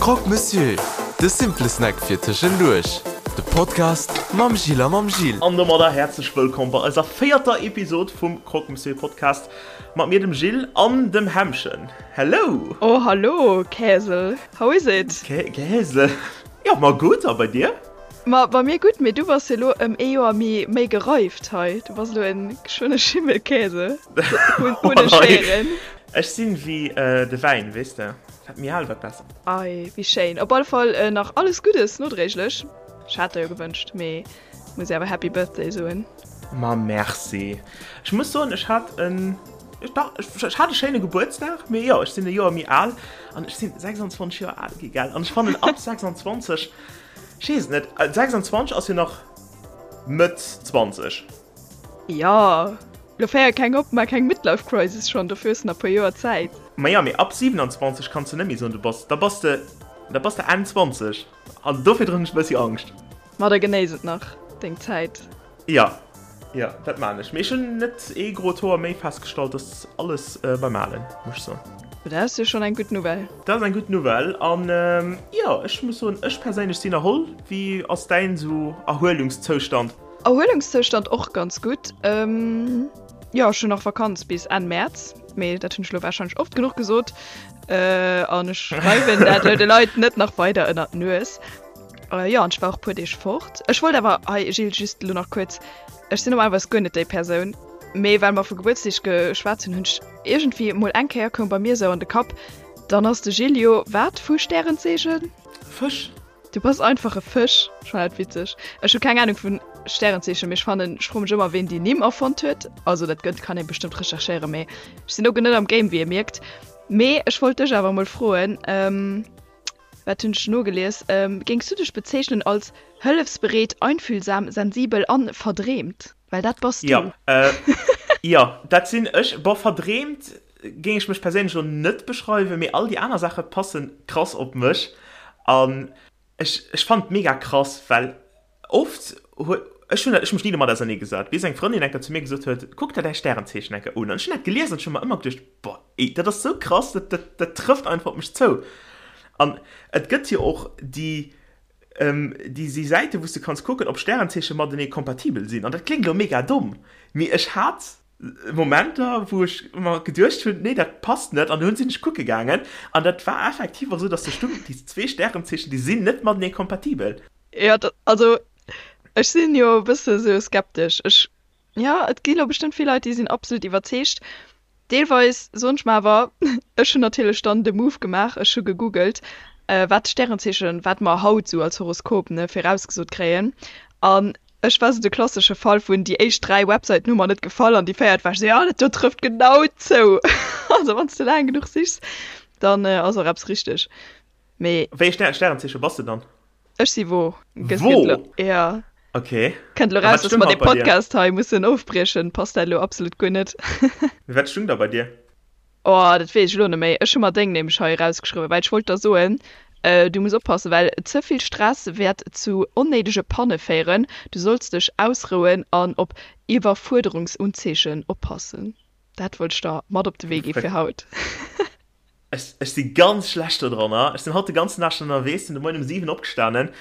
Croque Monsieur, de simple Snack fir tëschenduerch. De Podcast mam Gilles a mam Jill. An domadder häerzlech wëllkomm bei eiser véierter Episod vum Croque Monsieur Podcast mat mir dem Gilles an dem Hämmchen. Hello! Oh hallo Käsel, how is it? Käsel, jo ma gutt a bei dir? Ma bei mir gutt, mee du bass jo lo ëm ee Joer méi méi gereift hei. Du bass lo en geschwënne Schimmelkäse. Hunn hunn ech héieren. Ech sinn wéi de Wäin, weess de, wat méi al, wat besser. Ei, wéi schéin. Op alle Fall nach alles Guddes nodréiglech. Ech hat der jo gewënscht, mee muss awer Happy Birthday soen. Ma merci. Ech muss soen, ech hat en, dach, ech hat e schéine Gebuertsdag, mee jo, ech sinn e Joer méi al an ech sinn 26 Joer al gi, gell? An ech fannen ab 26, Ech weess et net. 26 ass jo nach Mëtt 20. Jo, lo féier keng op, mar keng Midlife Crisis schonn, dofir hues de nach e puer Joer Zäit. Ma jo, mee ab 27 kanns de net méi soen, du bass, da bass de, da bass de Enn 20 an dofir hunn ech e bëssi Angscht. Ma da genéiss et nach, deng Zäit. Jo, jo, dat maan ech. Mee ech hunn net ee grot Hoer méi festgestallt, ass alles beim Alen, muss ech soen. Dat ass jo schonn eng gutt Nouvelle. Dat ass eng gutt Nouvelle. An jo, ech muss soen, ech perséinlech sinn erholl. Wéi ass däin esou Erhuelungszoustand? Erhuelungszoustand och ganz gutt. Jo, ech hunn nach Vakanz bis Enn Mäerz, mee dat hunn ech elo warscheinlech oft genuch gesot. An ech schreiwen dat elo de Leit net nach weider ënnert d'Nues. Jo, an ech war och puer Deeg fort. Ech wollt awer hei, Gilles, just elo nach kuerz, ech sinn normalerweis guer net déi Persoun, mee well mer vu Gebuertsdeeg geschwat hunn, hunn ech iergendwéi emol eng Kéier koum bei mir esou an de Kapp, dann ass de Gilles jo wat vu Stärenzeechen? Fësch. Du bass einfach e Fësch. Ech fannen dat witzeg. Ech hu keng Anung vun Stärenzeechen, mee ech fannen, ech froe mech ëmmer, ween déi Nimm erfonnt huet. Also dat gëtt, kann ee bestëmmt recherchéieren, mee ech sinn do guer net am Game, wéi ee mierkt. Mee ech wollt dech awer emol froen, Wat hunn ech nogelies? Géings du dech bezeechnen als hëllefsbereet, einfühlsam, sensibel an verdreemt? Well dat bass du. Jo, jo, dat sinn ech. Bon, verdreemt géing ech mech perséinlech elo net beschreiwen, mee all déi aner Saache passe krass op mech. An ech, ech fannen et mega krass, well oft huet, ech hunn dat, ech hu mech ni domat ausernee gesat, bis eng Frëndin eng Kéier zu mir gesot huet, Kuck der däi Stärenzeechen eng Kéier un. An ech hunn dat gelies an ech hu mer ëmmer geduecht, Boah, ey, dat ass sou krass, dat, dat, dat trëfft einfach op mech zou. An et gëtt jo och déi, ähm, déi, déi Säiten, wou s du kanns kucken, ob Stärenzeeche matenee kompatibel sinn. An dat kléngt elo mega domm, mee ech hat Momenter, wou ech mer geduecht hunn, nee, dat passt net. An dunn sinn ech kucke gaangen an dat war effektiv och sou, dass do stung, déi zwee Stärenzeechen, déi sinn net matenee kompatibel. Jo, dat, also ech sinn jo e bësse sou skeptesch. Ech, jo, et gi lo bestëmmt vill Leit, déi sinn absolut iwwerzeegt. Deelweis soen ech mer awer, ech hunn natierlech dann de Move gemaach, ech hu gegoogelt, wat d'Stärenzeechen, wat mer haut esou als Horoskop, ne, virausgesot kréien. An ech war esou de klassesche Fall vun, déi éischt 3 Websäiten hu mer net gefall an déi véiert war ech esou, jo, dat do trëfft genau zou. Also wann s de laang genuch sichs, dann ass och eppes richteg. Mee. Wéi e Stärenzeeche bass de dann? Ech si Wo. Wo? Ja. Okay. Kënnt elo raus, dass mer dee Podcast hei mussen ofbriechen. Passt dat elo absolut guer net. Mee wat stung da bei dir? Oh, dat weess ech elo net méi. Ech hu mer deng nämlech hei erausgeschriwwen, well ech wollt der soen, du muss oppassen, well ze vill Stress wäert zu onnéidege Panne féieren. Du solls dech ausrouen an op Iwwerfuerderungsunzeechen oppassen. Dat wollt ech der mat op de Wee gi fir haut. Ech, ech si ganz schlecht do dranner. Ech sinn haut de ganzen Dag schon ënnerwees, sinn de Moien um 7 opgestanen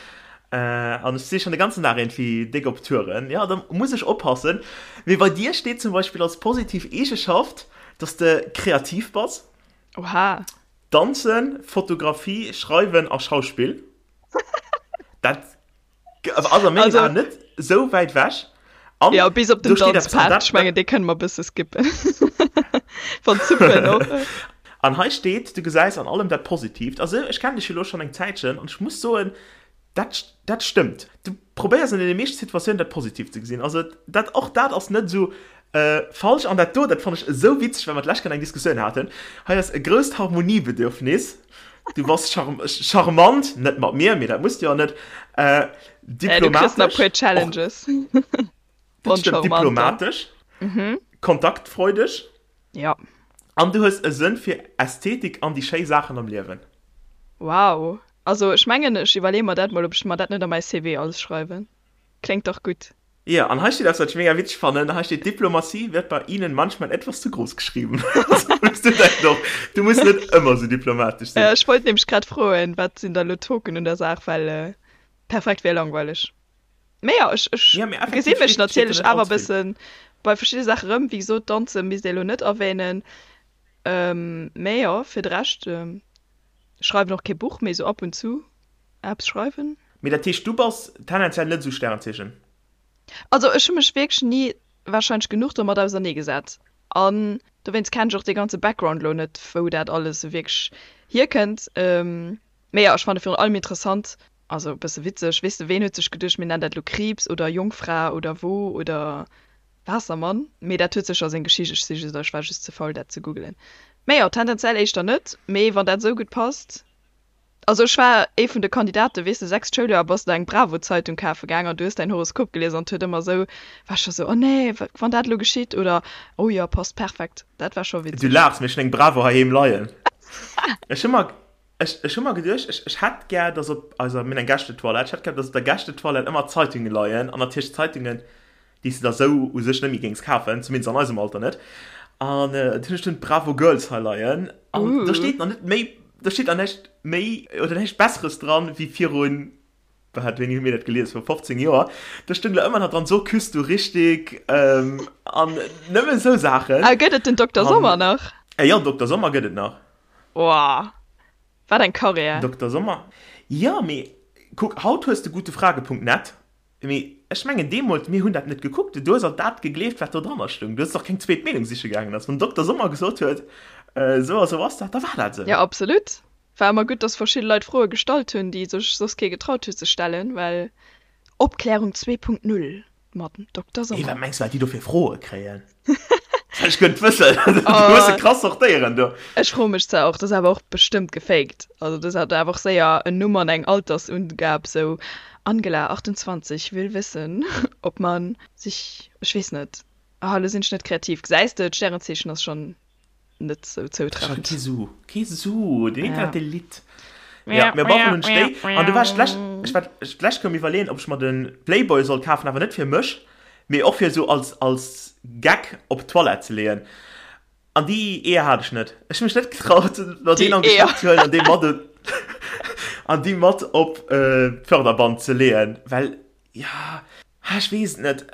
an ech si schon de ganzen Dag iergendwéi déck op Touren. Jo, da muss ech oppassen. Mee bei dir steet zum Beispill als positiv Eegeschaft, dass de kreativ bass. Oha. Danzen, Fotografie, Schreiwen a Schauspill. Dat ass a mengen Aen net esou wäit wech. An ja, bis op den Danzpart. Ech mengen, dee kënne mer e bësse skippen. Wann d'Suppen och. An hei steet, du gesäis an allem dat Positiivt. Also ech kennen dech jo elo schonn eng Zäitchen an ech muss soen, dat, dat stëmmt. Du probéiers an deene meeschte Situatiounen dat Positiivt ze gesinn. Also dat, och dat ass net esou falsch. An dat do, dat fannen ech esou witzeg, well mer d'lescht Kéier eng Diskussioun haten. Hei ass e grousst Harmoniebedürfnis. Du bass charmant, net mat mir, mee dat muss du jo net. Diplomatesch. Du kriss nach puer Challenges. Dat stimmt, diplomatesch. Kontaktfreudeg. Ja. An du hues e Sënn fir Ästhetik an déi schéi Saachen am Liewen. Wow. Also ech mengen, ech iwwerleeë mer dat mol, ob ech mer dat net a mäi CV alles schreiwen. Kléngt dach gutt. Jo, an hei steet eppes, wat ech mega witzeg fannen. Hei steet, Diplomatie wird bei Ihnen manchmal etwas zu groß geschrieben. Muss du dat och. Du muss net ëmmer sou diplomatesch sinn. Ech wollt nämlech grad froen, wat sinn da lo d'Token un der Saach, well perfekt wär langweileg. Mee jo, ech, ech Ja, mee gesi effektiv mech steet, steet do natierlech net awer allze vill. bëssen bei verschidde Saache rëm. Wéi gesot, Danze misst ee lo net erwähnen. Mee jo, fir de Rescht, schreiwen och kee Buch, mee sou ab und zu eppes schreiwen. Mee dat heescht, du bass tendenziell net esou Sternzeechen? Also ech hu mech wierklech ni warscheinlech genuch domat auserneegesat an dowéinst kennen ech och dee ganze Background lo net, wou dat alles sou wierklech hierkënnt. Mee jo, ech fanne virun allem interessant, also e bësse witzeg, weess de, ween huet sech geduecht, mir nennen dat lo Kriibs oder Jongfra oder Wo oder Waassermann, mee dat huet sécher seng Geschicht, ech si just, ech war just ze faul dat ze googelen. Mee jo, tendenziell éischter net, mee wann dat esou gutt passt. Also ech war ee vun de Kandidaten, weess de, sechst Schouljoer bass de eng Bravo-Zeitung kafe gaang an du hues däin Horoskop gelies an et huet ëmmer esou, war ech scho sou, oh nee, wann dat elo geschitt oder oh jo, passt perfekt. Dat war scho Du witzeg. laachs, mee ech hunn eng Bravo heiheem leien. Ech hu mer, ech, ech hu mer geduecht, ech, ech hätt gär, dass op eiser, mir hunn eng Gästetoilette, ech hätt gär, dass op der Gästetoilette ëmmer Zeitunge leien an natierlech Zeitungen, déi s de der sou u sech net méi géings kafen, zumindest an eisem Alter net. An dunn hunn ech dunn d'Bravo Girls hei leien an do steet nach net méi, do steet nach näischt méi oder näischt Besseres dran wéi virun, wat, wéini hu mir dat gelies, viru 15 Joer, do stoung der ëmmer nach dran, so küsst du richtig an nëmme sou Saachen. A gëtt et den Dokter Sommer nach? Jo, Dokter Sommer gëtt et nach. Woah, wat eng Carrière! Dokter Sommer, jo, mee kuck, haut hues de gutefrage.net. Mee ech mengen deemools, mir hunn dat net gekuckt, du hues alt dat gegleeft, wat do dranner stoung. Du hues och keng zweet Meenung siche gaangen. Also wann den Dokter Sommer gesot huet, esou a sou ass dat, da war dat esou. Jo, absolut. War ëmmer gutt, dass verschidde Leit Froe gestallt hunn, déi sech soss kee getraut huet ze stellen, well Opklärung 2.0 mat Dokter Hey, Sommer. wat mengs du, wat déi do fir Froe kréien? Ech gëtt wëssen. Du hues se krass sortéieren do. Ech froe mech zwar och, dat ass awer och bestëmmt gefaked. Also dat hat awer och séier en Numm an eng Altersungab, sou Angela, 28, will wissen, ob man sich, ech weess net, ah elo sinn ech net kreativ, gesäis de, d'Stärenzeechen ass schonn net sou zoutreffend. Kee Su, kee Su, den Internet dee litt. Ja, mir brauchen hunn ech déi. An du war ech d'lescht, ech war d'lescht koum iwwerleeën, ob ech mer de Playboy soll kafen, awer net fir mech, mee och fir esou als, als Gag op d'Toilette ze leeën. An déi Eeër hat ech net. Ech hu mech net getraut, mer deen an de Schnapp ze huelen an dee mat an déi mat op d'Förderband ze leeën, well, ja, ech weess et net.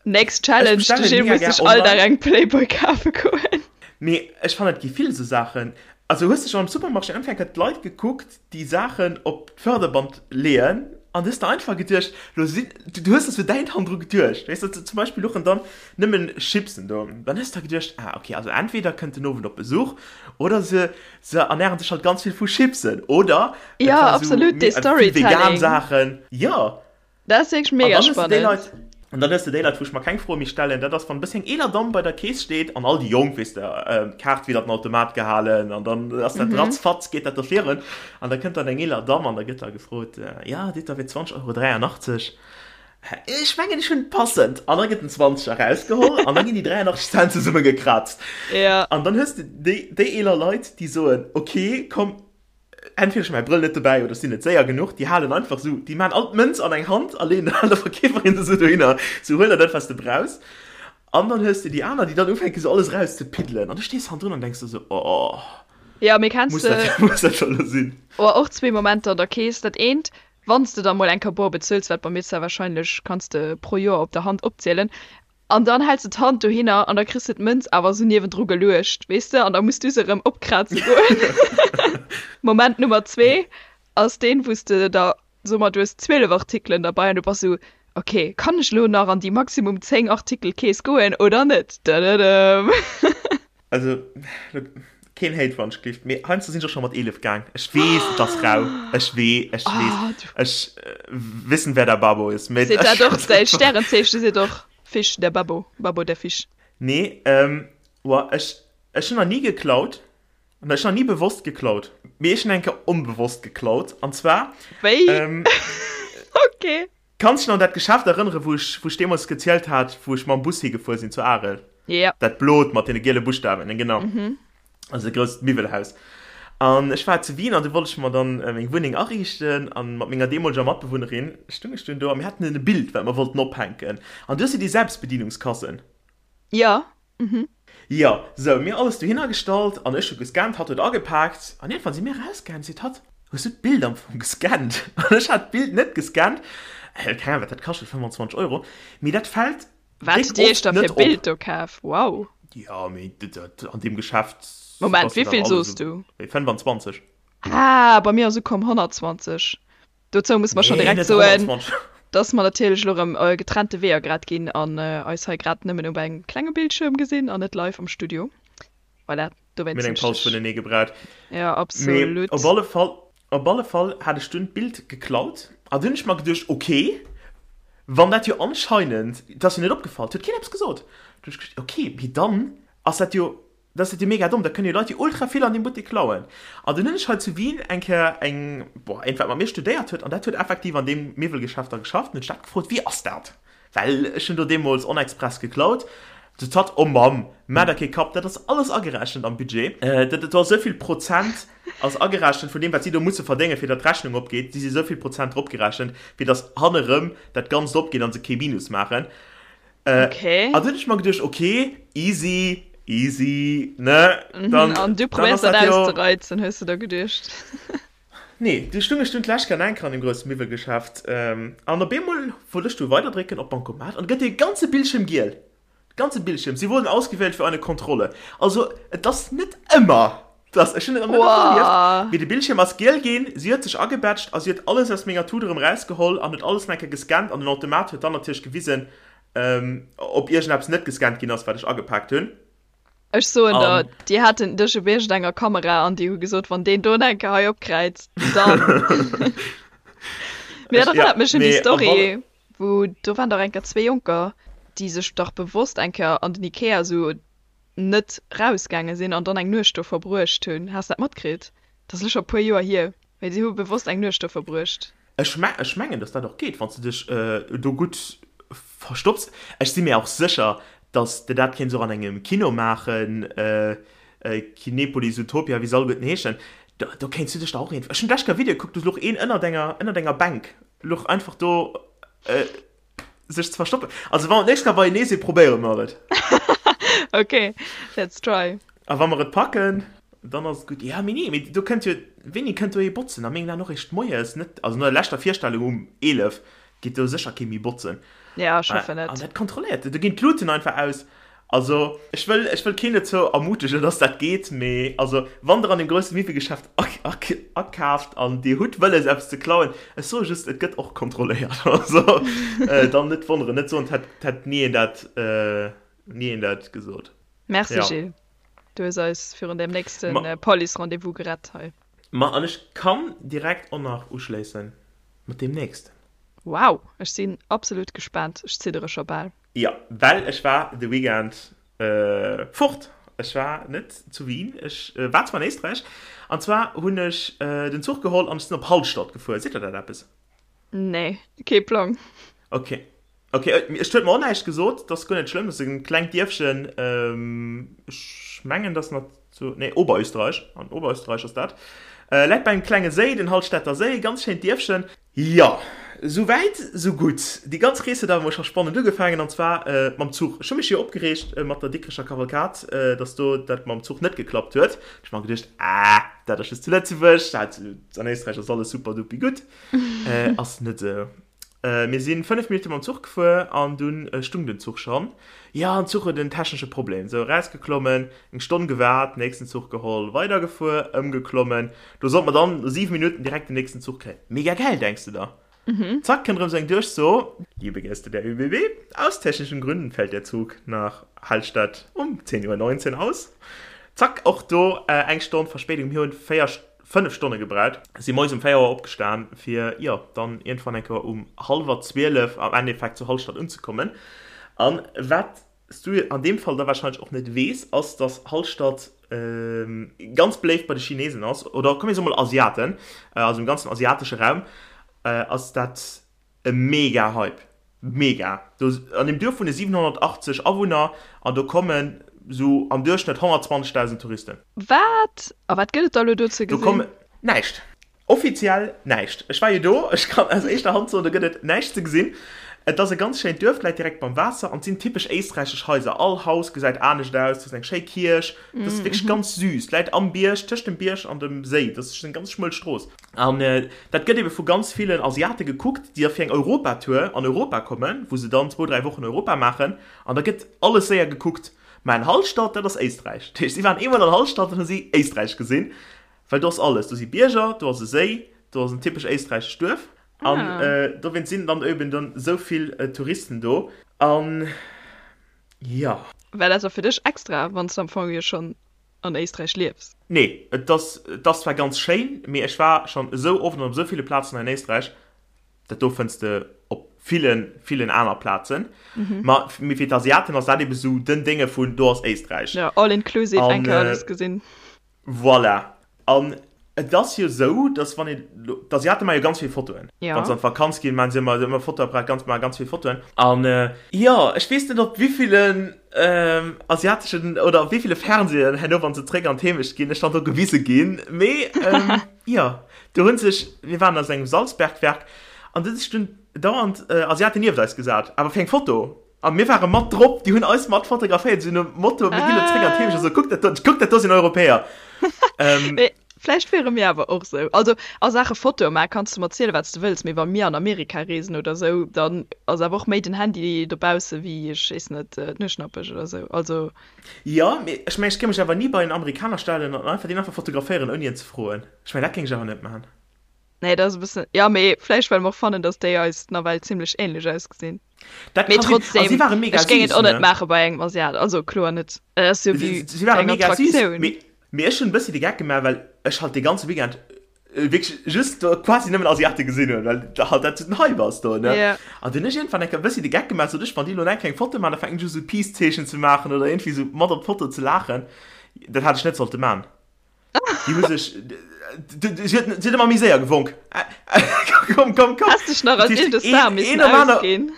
Next Challenge, de Gilles muss sech all Dag eng Playboy kafe goen. Mee ech fannen et gi vill esou Saachen. Also hues de schonn am Supermarché einfach eng Kéier d'Leit gekuckt, déi Saachen op d'Förderband leeën an du hues der einfach geduecht, lo sinn, du hues der sou däin Hand dru geduecht, weess de, zum Beispill luchen dann nëmmen Chipsen do, dann hues de der geduecht, ah okay, also entweder kënnt den Owend op Besuch oder se se ernähren sech halt ganz vill vu Chipsen oder et Ja, war sou absolut, dee vill vegan Storytelling. Saachen, jo. Dat ass wierklech An mega dann hues de déi spannend. Leit, an dann hues de déi Leit, wou ech mer keng Froe méi stellen, dat ass, wann e bëssi eng eeler Damm bei der Keess steet an all déi Jonk, weess de, d'Kaart widder den Automat gehalen an dann ass dat ratzfatz, geet dat do virun an da kënnt dann eng eeler Damm an da gëtt da gefrot, jo, Dir da fir 20 Euro 83. Ech mengen, ech hunn passend. An da gëtt den Zwanzeger erausgeholl an da ginn déi 83 Cent zesummegekraazt. Ja. An dann hues de déi, déi eeler Leit, déi soen, okay, komm, entweder ech hu mäi Brëll net dobäi oder ech sinn net séier genuch, déi halen einfach esou, déi maachen all d'Mënz an eng Hand a leeën der Verkeeferin se esou dohinner, sou huel der dat, wat s de brauchs. An dann hues de déi aner, déi dann ufänken, esou alles erauszepiddelen. An du stees hannendrun an denks der esou, oh, Ja, mee kenns muss de dat, muss dat scho elo sinn? Oh, och zwee Momenter an der Kees. Dat eent, wann s de da mol eng Kéier bor bezuels, wat bei mir zwar wahrscheinlech, kanns de pro Joer op der Hand opzielen, An dann häls de d'Hand dohinner an da kriss de d'Mënz awer esou niewendru geluecht, weess de, an da muss du se erëm opkraze goen. Moment Nummer zwee ass deen, wou s de da, soe mer, du hues 12 Artikelen derbei an du bass esou, ok, kann ech elo nach an déi maximum 10 Artikel-Kees goen oder net? Dëdëdëm. Also, keen Hate wann ech gelift, mee heiansdo sinn ech och scho mat 11 gaang. Ech weess, et ass rau. Ech wee, ech weess. Ech wissen, wer der Babo ist. Mee Seet dat och däi Stärenzeechen seet och Fisch, der Babo, Babo der Fisch. Nee, woah, ech, ech hunn nach ni geklaut. Ech hunn nach ni bewosst geklaut. Mee ech hunn eng Kéier onbewosst geklaut. An zwar. Wéi? Ok. Kanns dech nach un dat Geschäft erënneren, wou ech, wou ech deemools gezielt hat, wou ech mam Bus higefuer sinn zu Arel? Ja. Dat blot mat deene giele Buschtawen, genau. Mhm. Also e grousst Miwwelhaus. An ech war zu Wien an du wollt ech mer dann meng Wunneng ariichten an mat menger deemoleger Matbewunnerin stung ech dunn do a mir haten e Bild, wat mer wollten ophänken. An du hues jo déi Selbstbedienungskassen. Ja. Mhm. Jo, sou, mir alles dohinner gestallt an ech hu gescannt, hatt huet agepaakt an iergendwann si mir erausgaangen, seet hatt, Hues du d'Bild am Fong gescannt? An ech hat d'Bild net gescannt, keng Ahnung wat dat kascht huet, 25 Euro, mee dat fält Wat déck hutt Dir iech oft da fir net op. Bild do kaf? Wow! Jo, mee dat an deem Geschäft Moment, ass dat awer wéivill alles soos esou du? 25. Ah, bei mir ass ukomm 120. Dozou musse mer schonn Nee, direkt net soen, 120. dass mer natierlech elo erëm getrennte Weeër grad ginn an eis hei grad nëmmen op engem klenge Bildschirm gesinn an net live am Studio. Voilà, Mir dowéinst hunn hunn eng ech Paus dech. vunenee gebraucht. Ja, Mee op absolut. alle Fall, op alle Fall hat ech dunn d'Bild geklaut an dunn hunn ech mer geduecht, ok, wann dat jo anscheinend, et ass jo net opgefall, et huet keen eppes gesot, dunn hunn ech geduecht, ok, mee dann ass dat jo, dat ass dat jo mega domm, da kënnen jo Leit jo ultra vill an deem Buttek klauen. An dunn hunn ech hei zu Wien eng Kéier eng, boah, eent wat mat mir studéiert huet an dat huet effektiv an deem Miwwelgeschäft da geschafft, hunn ech dat gefrot, wéi ass dat? Well ech hunn do deemools onexpress geklaut. Sot hatt, Oh Mamm, maach der kee Kapp, dat ass alles agerechent am Budget. Dat do ass esou vill Prozent ass agerechent vun deem, wat si do musse verdéngen, fir datt d'Rechnung opgeet. Si si esou vill Prozent dropgerechent, fir datt hannerëm dat Ganzt opgeet a se kee Minus maachen. Okay. An dunn hunn ech mer geduecht, Okay, easy, easy, ne? Dann, An du dann probéiers ass dat dat jo. auszereizen, hues de der geduecht. Nee, du stung ech dunn d'lescht Kéier enker an deem grousse Miwwelgeschäft an op eemol wollt ech du weiderdrécken op Bancomat an gëtt dee ganze Bildschirm giel. De ganze Bildschirm. Sie wurden ausgewählt für eine Kontrolle. Also et ass net ëmmer, dass, ech hunn et nach net oft erlieft, mee de Bildschirm ass giel ginn, si huet sech agebätscht a si huet alles aus menger Tut erëm erausgeholl an huet alles nach eng Kéier gescannt an den Automat huet dann natierlech gewisen, ob iergendeppes net gescannt ginn ass, wat ech agepaakt hunn. Ech soen der, déi haten dech op iergendenger Kamera an déi hu gesot, wann deen do enke hei opkräizt, dann. Mee dat erënnert mech un déi Story, wou do waren dach enker zwee Jonker, déi sech dach bewosst eng Kéier an den Ikea esou net rausgaange sinn an dann eng Nuecht do verbruecht hunn. Has de dat matkritt? Dat ass elo scho e puer Joer hier, mee si hu bewosst eng Nuecht do verbruecht. Ech mengen, dass dat och geet, wann s de dech do gutt verstopps. Ech si mir och sécher, dass de dat kéints och an engem Kino maachen, Kinepolis, Utopia, wéi se alleguerten heeschen. Do kéints du dech da och een. Ech hunn d'lescht Kéier e Video gekuckt, do louch een ënnert enger, ënnert enger Bänk, louch einfach do. Sech ze verstoppen. Also wa mer d'nächst Kéier beienee sinn, probéiere mer et. Ok, let's try. A wa mer et packen, dann ass et gutt. Ja, mee nee, mee do kënnt jo, wéini kënnt do ee botzen? A mengen Aen och eréischt moies, net, also no der leschter Virstellung um 11 geet do sécher kee méi botzen. Ja, ech hoffen An et. dat kontrolléiert, do ginn d'Luten einfach aus. Also ech wëll, ech wëll keen dozou ermutegen, dass dat geet, mee also wann der an deem grousse Miwwelgeschäft akaaft an dir hutt wëlles eppes ze klauen, ech soe just, et gëtt och kontrolléiert. Also dann net wonneren, net soen, et hätt ni een dat, ni een dat gesot. Merci Ja. Gilles, du hues eis virun deem nächste Ma. Police-Rendez-vous gerett hei. Ma an ech kann direkt och nach uschléissen mat deem nächsten. Wow, ech sinn absolut gespaant, ech ziddere scho bal. Jo, well ech war de Weekend fort. Ech war net zu Wien, ech war zwar an Éisträich. An zwar hunn ech den Zuch geholl an ech sinn op Hallstatt gefuer. Seet der dat eppes? Nee, kee Plang. Ok, ok, et huet mer och näischt gesot, dat ass guer net schlëmm. Dat ass e klengt Dierfchen, ech mengen, dat ass nach zu, nee, Oberösterreich, an Oberösterreich ass dat. Läit bei engem klenge Séi, den Hallstätter Séi, ganz schéint Dierfchen. Jo, sou wäit, sou gutt. Déi ganz Rees huet awer mol scho spannend ugefaangen, an zwar mam Zuch. Ech hu mech jo opgereegt mat der Dikrecher Kavalkad, dass do dat mam Zuch net geklappt huet. Ech hu mer geduecht, ah, dat ass just zu Lëtzebuerg, dat an Éisträich ass alles super dupi gutt. Ass net esou. Mir si 5 Minutte mam Zuch gefuer an dunn stung den Zuch schonn. Jo, den Zuch huet en technesche Problem. Sou, erausgeklommen, eng Stonn gewaart, nächsten Zuch geholl, weidergefuer, ëmgeklommen. Do sollt mer dann no 7 Minutten direkt den nächsten Zuch kréien. Mega geil, denks de der. Zack, kënnt erëm sou eng Duerchso, Liebe Gäste der ÖBB, aus technischen Gründen fällt der Zug nach Hallstatt um 10.19 Uhr aus. Zack, och do eng Stonn Verspéidung. Mir hunn 4, 5 Stonne gebraucht. Si moies um 4 Auer opgestan, fir, jo, dann iergendwann eng Kéier um hallwer 12 am Endeffekt zu Hallstatt unzekommen. An wat s du an deem Fall da wahrscheinlech och net weess, ass, dass Hallstatt ganz beléift bei de Chinesen ass, oder komm mir soe mol Asiaten, also im ganzen asiatesche Raum ass dat e mega Hype. Mega! Do an deem Duerf wunne 780 Awunner an do kommen sou am Duerchschnëtt 120.000 Touristen. Wat? A wat gëtt et da lo do ze Do gesinn? kommen näischt. Offiziell näischt. Ech war jo do, ech kann aus éischter Hand soen, do gëtt et näischt ze gesinn. Et ass e ganz schéint Duerf, läit direkt beim Waasser an et sinn typesch éisträichesch Haiser. All Haus gesäit anescht aus, do ass eng schéi Kierch, dat ass wierklech ganz süß. Läit am Bierg, tëscht dem Bierg an dem Séi, dat ass eng ganz schmuel Strooss. An dat gëtt ebe vu ganz villen Asiate gekuckt, déi da fir eng Europatour an Europa kommen, wou se dann zwou, dräi Wochen Europa maachen an da gëtt alles séier gekuckt. Mä en Hallstatt, dat ass Éisträich. Dat heescht, si waren eemol an Hallstatt an hu si Éisträich gesinn, well do ass alles. Do si Bierger, do ass e Séi, do ass en typesch éisträichescht Duerf. An dowéinst sinn dann eben dann esou vill Touristen do. An jo. War dat da fir dech extra, wann s de am Fong jo schonn an Éisträich liefs? Nee, et ass, et ass zwar ganz schéin, mee ech war schonn esou oft an op esou ville Plazen hei an Éisträich, dat do fënns de op villen, villen aner Plazen. Ma mee fir d'Asiaten ass dat ebe sou den Dénge vun do ass Éisträich. Jo, all inclusive, eng Kéier alles gesinn. Voilà. An et ass jo esou, dass wann een, d'Asiate maache jo ganz vill Fotoen. Ja. Wann se an d'Vakanz ginn, maachen se ëmmer, ëmmer Fotoapparat, ganz, maache ganz vill Fotoen. An jo, ech weess net op wéivillen asiateschen oder op wéiville Fernsehen herno, wann se zréck an d'Heemecht ginn, ech dann do gewise ginn. Mee jo, do hu sech, mir waren a sou engem Salzbergwerk an do hu sech dunn dauernd Asiaten nieft eis gesat, awer fir eng Foto. A mir ware mat drop, déi hunn eis mat fotograféiert, esou nom Motto, mir ginn elo zréck an d'Heemecht, esou, kuckt dat do, kuckt dat do sinn Europäer. Mee vläicht wiere mir awer och esou. Also a Saache Fotoe maachen, kanns de mer zielen, wat s de wëlls, mee wa mir an Amerika reesen oder esou, dann ass awer och méi den Handy dobausse wéi, ech weess net, d'Nueschnappesch oder esou. Also. Jo, mee ech mengen, ech géing mech awer ni bei en Amerikaner stellen an einfach deen einfach fotograféieren, ouni en ze froen. Ech mengen, dat géing ech awer net maachen. Nee, dat ass e bëssen, jo, mee vläicht well mer och fannen, datt déi eis nawell zimlech änlech ausgesinn. Dat Mee kann sinn. trotzdem, A si ware mega ech géing et süß, och net ne? maache bei engem Asiat, also kloer net. Et ass jo Si, wéi si ware eng mega süß, Attraktioun. mee, mee ech hunn e bëssi de Geck gemaach, well ech halt dee ganze Weekend wierklech just do quasi nëmmen Asiate gesinn hunn, well halt dat sou den Hype ass do, ne? Ja. An dunn hunn ech iergendwann eng Kéier e bëssi de Geck gemaach, sot ech, wann déi elo eng Kéier eng Foto maachen, da fänken ech u sou Peace-Zeechen ze maachen oder iergendwéi sou mat op d'Foto ze laachen. Dat hat ech net sollte man. Déi hu sech, si huet, si huet ëmmer méi séier gewonk. Komm, komm, komm. Häss dech nach als Dat heescht, eent Star een, missen een nom aner, ausginn.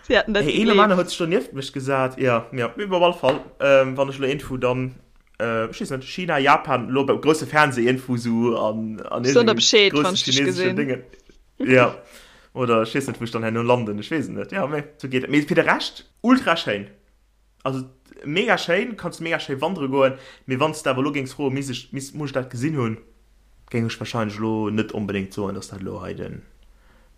Si hätten dat hey, een nom aner gegleeft. huet sech do nieft mech gesat. Ja, ja, mee op alle Fall, ähm, wann ech elo iergendwou dann, äh, ech weess net, China, Japan, elo beim grousse Fernseh iergendwou sou an, an Ech soen der iergendengem Bescheed, wann grousse ech dech chineseschen gesinn. Déngen, ja, oder ech weess net, wou ech dann herno landen, ech weess et net, ja, mee sou geet et. Mee fir de Rescht ultra schéin. Also mega schéin, kanns mega schéi wandere goen, mee wanns de awer elo géings froen, misst ech, misst, muss ech dat gesinn hunn, géing ech wahrscheinlech elo net onbedéngt soen, dass dat elo hei den,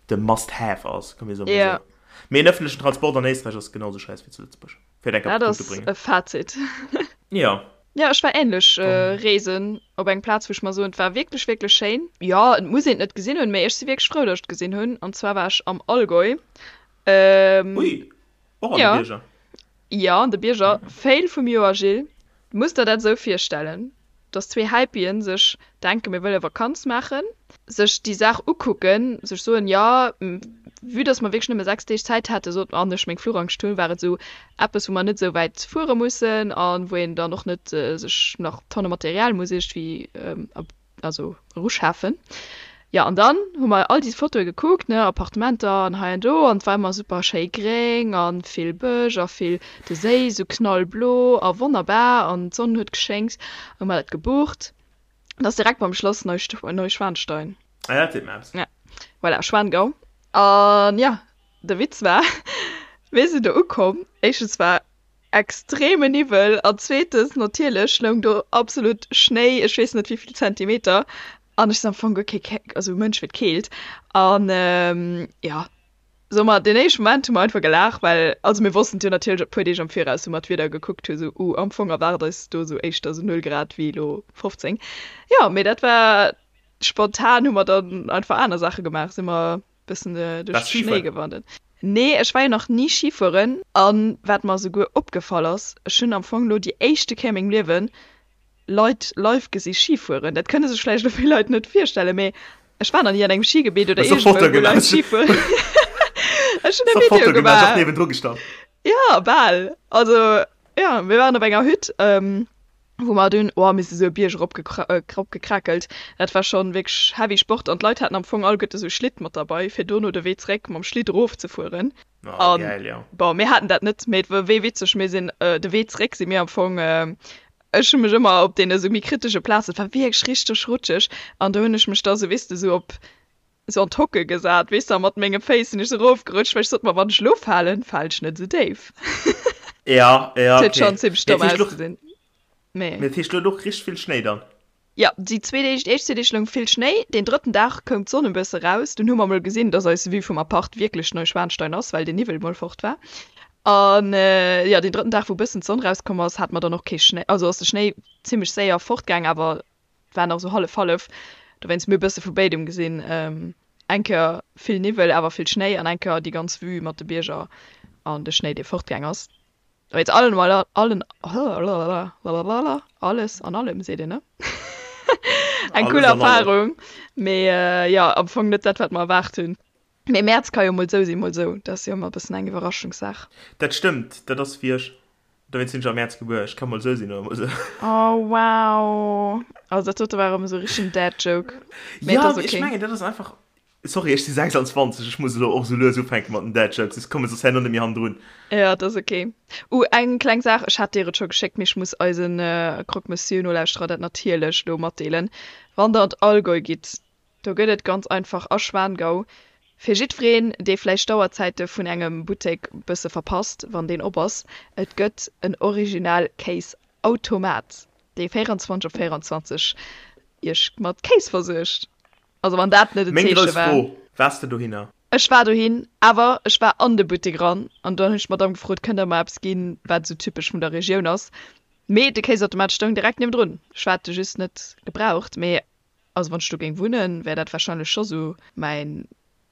de must have ass, komm mir soe mol Ja. esou. Mee en ëffentlechen Transport an Éisträich ass genau esou schäiss wéi zu Lëtzebuerg, fir et eng Kéier op Dat de Punkt ze ass bréngen. e Fazit. Jo. Jo, ech war ähnlech Dann. reesen op eng Plaz, wou ech mer soen, et war wierklech, wierklech schéin. Jo, et muss een et net gesinn hunn, mee ech si wierklech frou, datt ech et gesinn hunn. An zwar war ech am Allgäu. Ui, och an de Jo. Bierger? Jo, an de Bierger. Fail vum Joer, Gilles. Du muss der dat esou virstellen, dass zwee Häipien sech denken, mir wëlle Vakanz maachen, sech déi Saach ukucken, sech soen, jo, vue dass mer wierklech nëmme 6 Deeg Zäit haten, sot an ech meng Fluchangscht hunn, war et esou eppes, wou mer net esou wäit fuere mussen a wou een dann och net sech nach Tonne Material muss iergendwéi also eruschafen. Jo, an dann hu mer all déi Fotoe gekuckt, ne, Appartementer an hei an do, an et war ëmmer super schéi gréng a vill Bësch a vill, de Séi esou knallblo a wonnerbar an d'Sonn huet geschéngt. Hu mer dat gebucht. Dat ass direkt beim Schlass Neuschwanstein. Ah ja, dat seet mer eppes. Ja, voilà, Schwangau. An jo, de Witz war, mir sinn do ukomm, éischtens war Extreme Niwwel an zweetens natierlech loung do absolut Schnéi, ech weess net wéivill Zentimeter an ech sinn am Fong guer kee Ke also Mënsch fir d'Keelt an jo soe mer deen éischte Moment hu mer einfach gelaacht, well also mir wossten et jo natierlech e puer Deeg am Viraus wou mer d'Wieder gekuckt hu sou uh am Fong erwaart eis do sou éischter sou 0 Grad wéi elo 15. Jo mee dat war spontan hu mer dann einfach aner Saache gemaach, si mer Bëssen duerch de Schnéi gewandert. Nee, ech war jo nach ni Ski fueren. An wat mer esouguer opgefall ass, ech hunn am Fong lo déi éischte Kéier a mengem Liewen Leit live gesi Ski fueren. Dat kënne sech vläicht elo vill Leit net virstellen, mee ech war nach ni an engem Skigebitt oder iergendwou, wou Leit Ski fueren. Ech hunn e Video gemaach. Jo, bal. Also, jo, mir waren op enger Hütt. Wou mer dunn, oh, mir si sou e Bierg erop gekrackelt, dat war schonn wierklech heavy Sport an d'Leit haten am Fong alleguerte sou Schlitt mat derbei, fir dono de Wee zeréck mam Schlitt erof ze fueren. Oh, geil, jo. Bon, mir haten dat net, mee et war wéi witzeg, mir sinn de Wee zeréck si mir am Fong, ech hu mech ëmmer op deene sou méi kritesche Plazen, et war wierklech richteg rutscheg an do hunn ech mech da sou, weess de, sou op. sou an d'Hocke gesat, weess de, a mat menge Féiss sinn ech sou erofgerutscht, well ech sot mer, wann ech elo falen, falen ech net esou déif. Ja, ja, Et huet okay. schonn zimmlech Mee domm dat heescht, lo, ausgesinn, mee. mee dat heescht, lo och richteg vill Schnéi dann? Jo, déi zwee Deeg, déi éischt zwee Deeg loung vill Schnéi, deen drëtten Dag koum d'Sonn e bësse raus, dunn hu mer mol gesinn, dass eis Vue vum Apart wierklech Neuschwanstein ass, well den Niwwel mol fort war. An jo, deen drëtten Dag, wou bëssen d'Sonn rauskomm ass, hate mer dann och kee Schnéi, also ass de Schnéi zimmlech séier fortgaang, awer et war nach esou hallef-hallef. Dowéinst, mir hu bësse vu béidem gesinn, eng Kéier vill Niwwel, awer vill Schnéi an eng Kéier déi ganz Vue mat de Bierger an de Schnéi, dee fortgaang ass. Jetzt allen mal allen alles an allem seet een ne? Eng cool Erfahrung mee äh, ja am Fong net dat wat mer erwaart hunn. Mee Mäerz ka jo mol sou sinn mol sou, dat ass jo ëmmer e bëssen eng Iwwerraschungssaach. Dat stëmmt, dat ass wéi ech, dowéinst sinn ech am Mäerz gebuer, ech ka mol sou sinn oder mol sou. Oh wow, also dat dote war erëm esou richtegen Dad Joke, mee et ass ok. Jo, ech mengen dat ass einfach Sorry, ech si 26, ech muss elo och sou lues ufänke mat den Dad Jokes, ech komme soss herno net méi hannendrun. Jo, et ass ok. Uh, eng kleng Saach, ech hat dir et scho geschéckt, mee ech muss eisen Croque Monsieur Nolauschterer dat natierlech elo matdeelen, Wann der an d'Allgäu gitt, do gëtt et ganz einfach a Schwangau, fir jiddwereen, dee vläicht d'Auerzäite vun engem Buttek bësse verpasst, wann deen op ass, et gëtt en original Kéisautomat, dee 24 op 24 iech mat Kéis versuergt. Also wann dat net en Meng Zeeche grouss war. Fro, Waars de dohinner? Ech war dohin, awer ech war an de Buttek eran an dann hunn ech d'Madame gefrot, kënnt der mer eppes ginn, wat esou typesch vun der Regioun ass. Mee de Kéisautomat stoung direkt niewendrun. Ech hat e just net gebraucht. Mee also wann ech do géing wunnen, wär dat warscheinlech scho sou mäin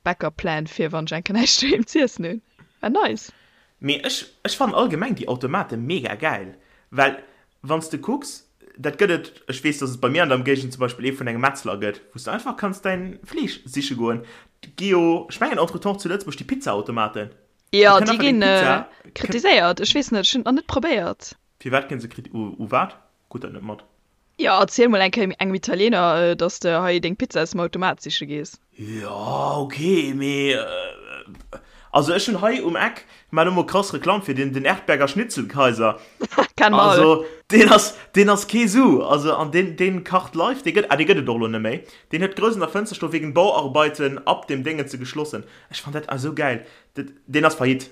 Backup Plan fir wann ech eng Kéier näischt doheem z'iessen hunn. War nice. Mee ech ech fannen allgemeng déi Automate mega gäil, well wann s de kucks, dat gëtt et, ech weess dass et bei mir an der Emgéigend zum Beispill ee vun engem Metzler gëtt, wou s de einfach kanns däin Fleesch siche goen. Et gi jo, ech mengen entretemps zu Lëtzebuerg déi Pizzaautomaten, do Jo, kënnt déi einfach deng ginn Pizza, kënnt. kritiséiert. Ech weess net, ech hunn et nach net probéiert. Firwat ginn se kriti, u u wat? Krut dat net mat. Jo, erziel mol eng Kéier engem Italiener, dass de hei deng Pizza aus dem Automat siche gees. Jo, ok, mee also ech hunn hei um Eck, maan elo mol krass Reklamm fir deen, den Erdberger Schnitzelkaiser. Kennen mer all. Also deen ass, deen ass kee Su, also an deen, deen kacht live, dee gëtt, ah dee gëtt et och elo net méi, deen huet grouss an der Fënster stoen, wegen Bauarbeiten ab dem Déngenze geschlossen. Ech fann dat esou gäil, dat, deen ass faillite.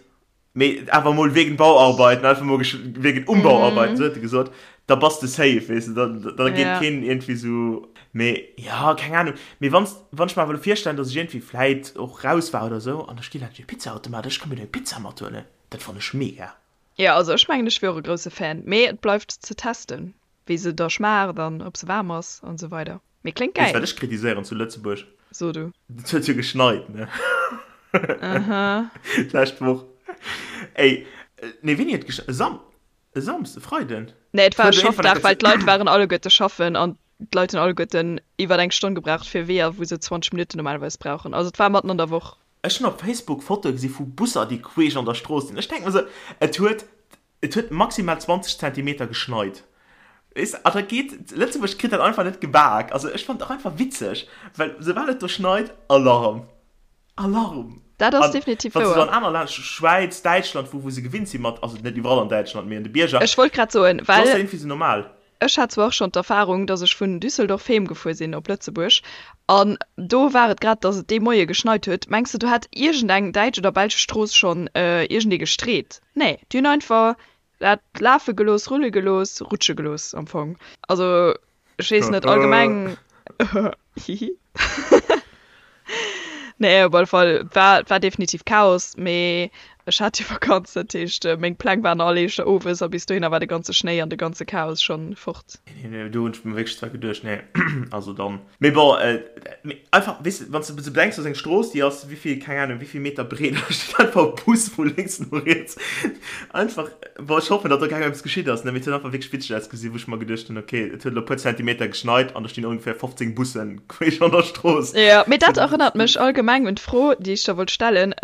Mee awer mol wegen Bauarbeiten, einfach mol wegen Umbauarbeiten, sou huet e gesot, da bass de safe, weess de, da, da geet Ja. keen iergendwéi sou. Mee ja, keng Ahnung. Mee wann, wann ech mer awer elo virstellen, datt ech iergendwéi vläit och raus war oder sou an da steet laanscht e Pizzaautomat, ech ka mir do eng Pizza mathuelen, dat fannen ech mega. Jo, also ech mengen ech wier och e grousse Fan, mee et bleift ze testen, wéi se da schmaacht an ob se waarm ass an esou weider. Mee kléngt Weess gäil. wat ech kritiséieren zu Lëtzebuerg? So du. Et huet jo geschneit, ne? Aha. D'lescht Woch. Ey, nee, wéini huet geschneit? E Sam, e Samsden, e Freiden? Nee, et war e Huet iergendwann Schaffdag, well eng Kéier d'Leit waren alleguerte schaffen an d'Leit hunn alleguerten iwwer eng Stonn gebraucht fir Weeër, wou se 20 Minutten normalerweis brauchen. Also et war matten an der Woch. Ech hunn op Facebook Fotoe gesi vu Busser, déi queesch an der Strooss sinn. Ech denke mer esou, et huet Et huet maximal 20 Zentimeter geschneit. Weess de, a da geet, Lëtzebuerg kritt dat einfach net gebak. Also ech fannen et och einfach witzeg, well soubal et do schneit, Alarm! Alarm! Dat ass An definitiv wann s de wouer. an aner Länner, Schwäiz, Däitschland, wou wou se gewinnt si mat, also net iwwerall an Däitschland, mee an de Bierger, Ech wollt grad soen, do ass dat well iergendwéi sou normal. Ech hat zwar och schonn d'Erfarung, dass ech vun Düsseldorf heem gefuer sinn op Lëtzebuerg an do war et grad, dass et dee Moie geschneit huet. Mengs de do hätt iergendeng däitsch oder belsch Strooss schonn iergendee gestreet? Nee, déi hunn einfach dat lafe gelooss, rulle gelooss, rutsche gelooss am Fong. Also ech weess net, allgemeng hihi. Nee, op alle Fall, et war, et war definitiv Chaos, mee ech hat jo Vakanz, dat heescht, meng Pläng waren all éischter owes a bis dohinner war de ganze Schnéi an de ganze Chaos schonn fort. Nee, nee, do hunn ech mir wierklech zwar geduecht, nee, also dann. Mee bon, mee einfach, weess de, wann s de sou bedenks, dass eng Strooss, déi ass wéivill, keng Ahnung, wéivill Meter breet, da steet einfach e Bus vu lénks no riets. Einfach, bon, ech hoffen, datt do kengem eppes geschitt ass, ne, mee et huet einfach wierklech witzeg ausgesinn, wou ech mer geduecht hunn, okay, et huet elo e puer Zentimeter geschneit an do stinn ongeféier 15 Bussen queesch an der Strooss. Jo, mee dat erënnert mech allgemeng un d'Fro, déi ech der wollt stellen,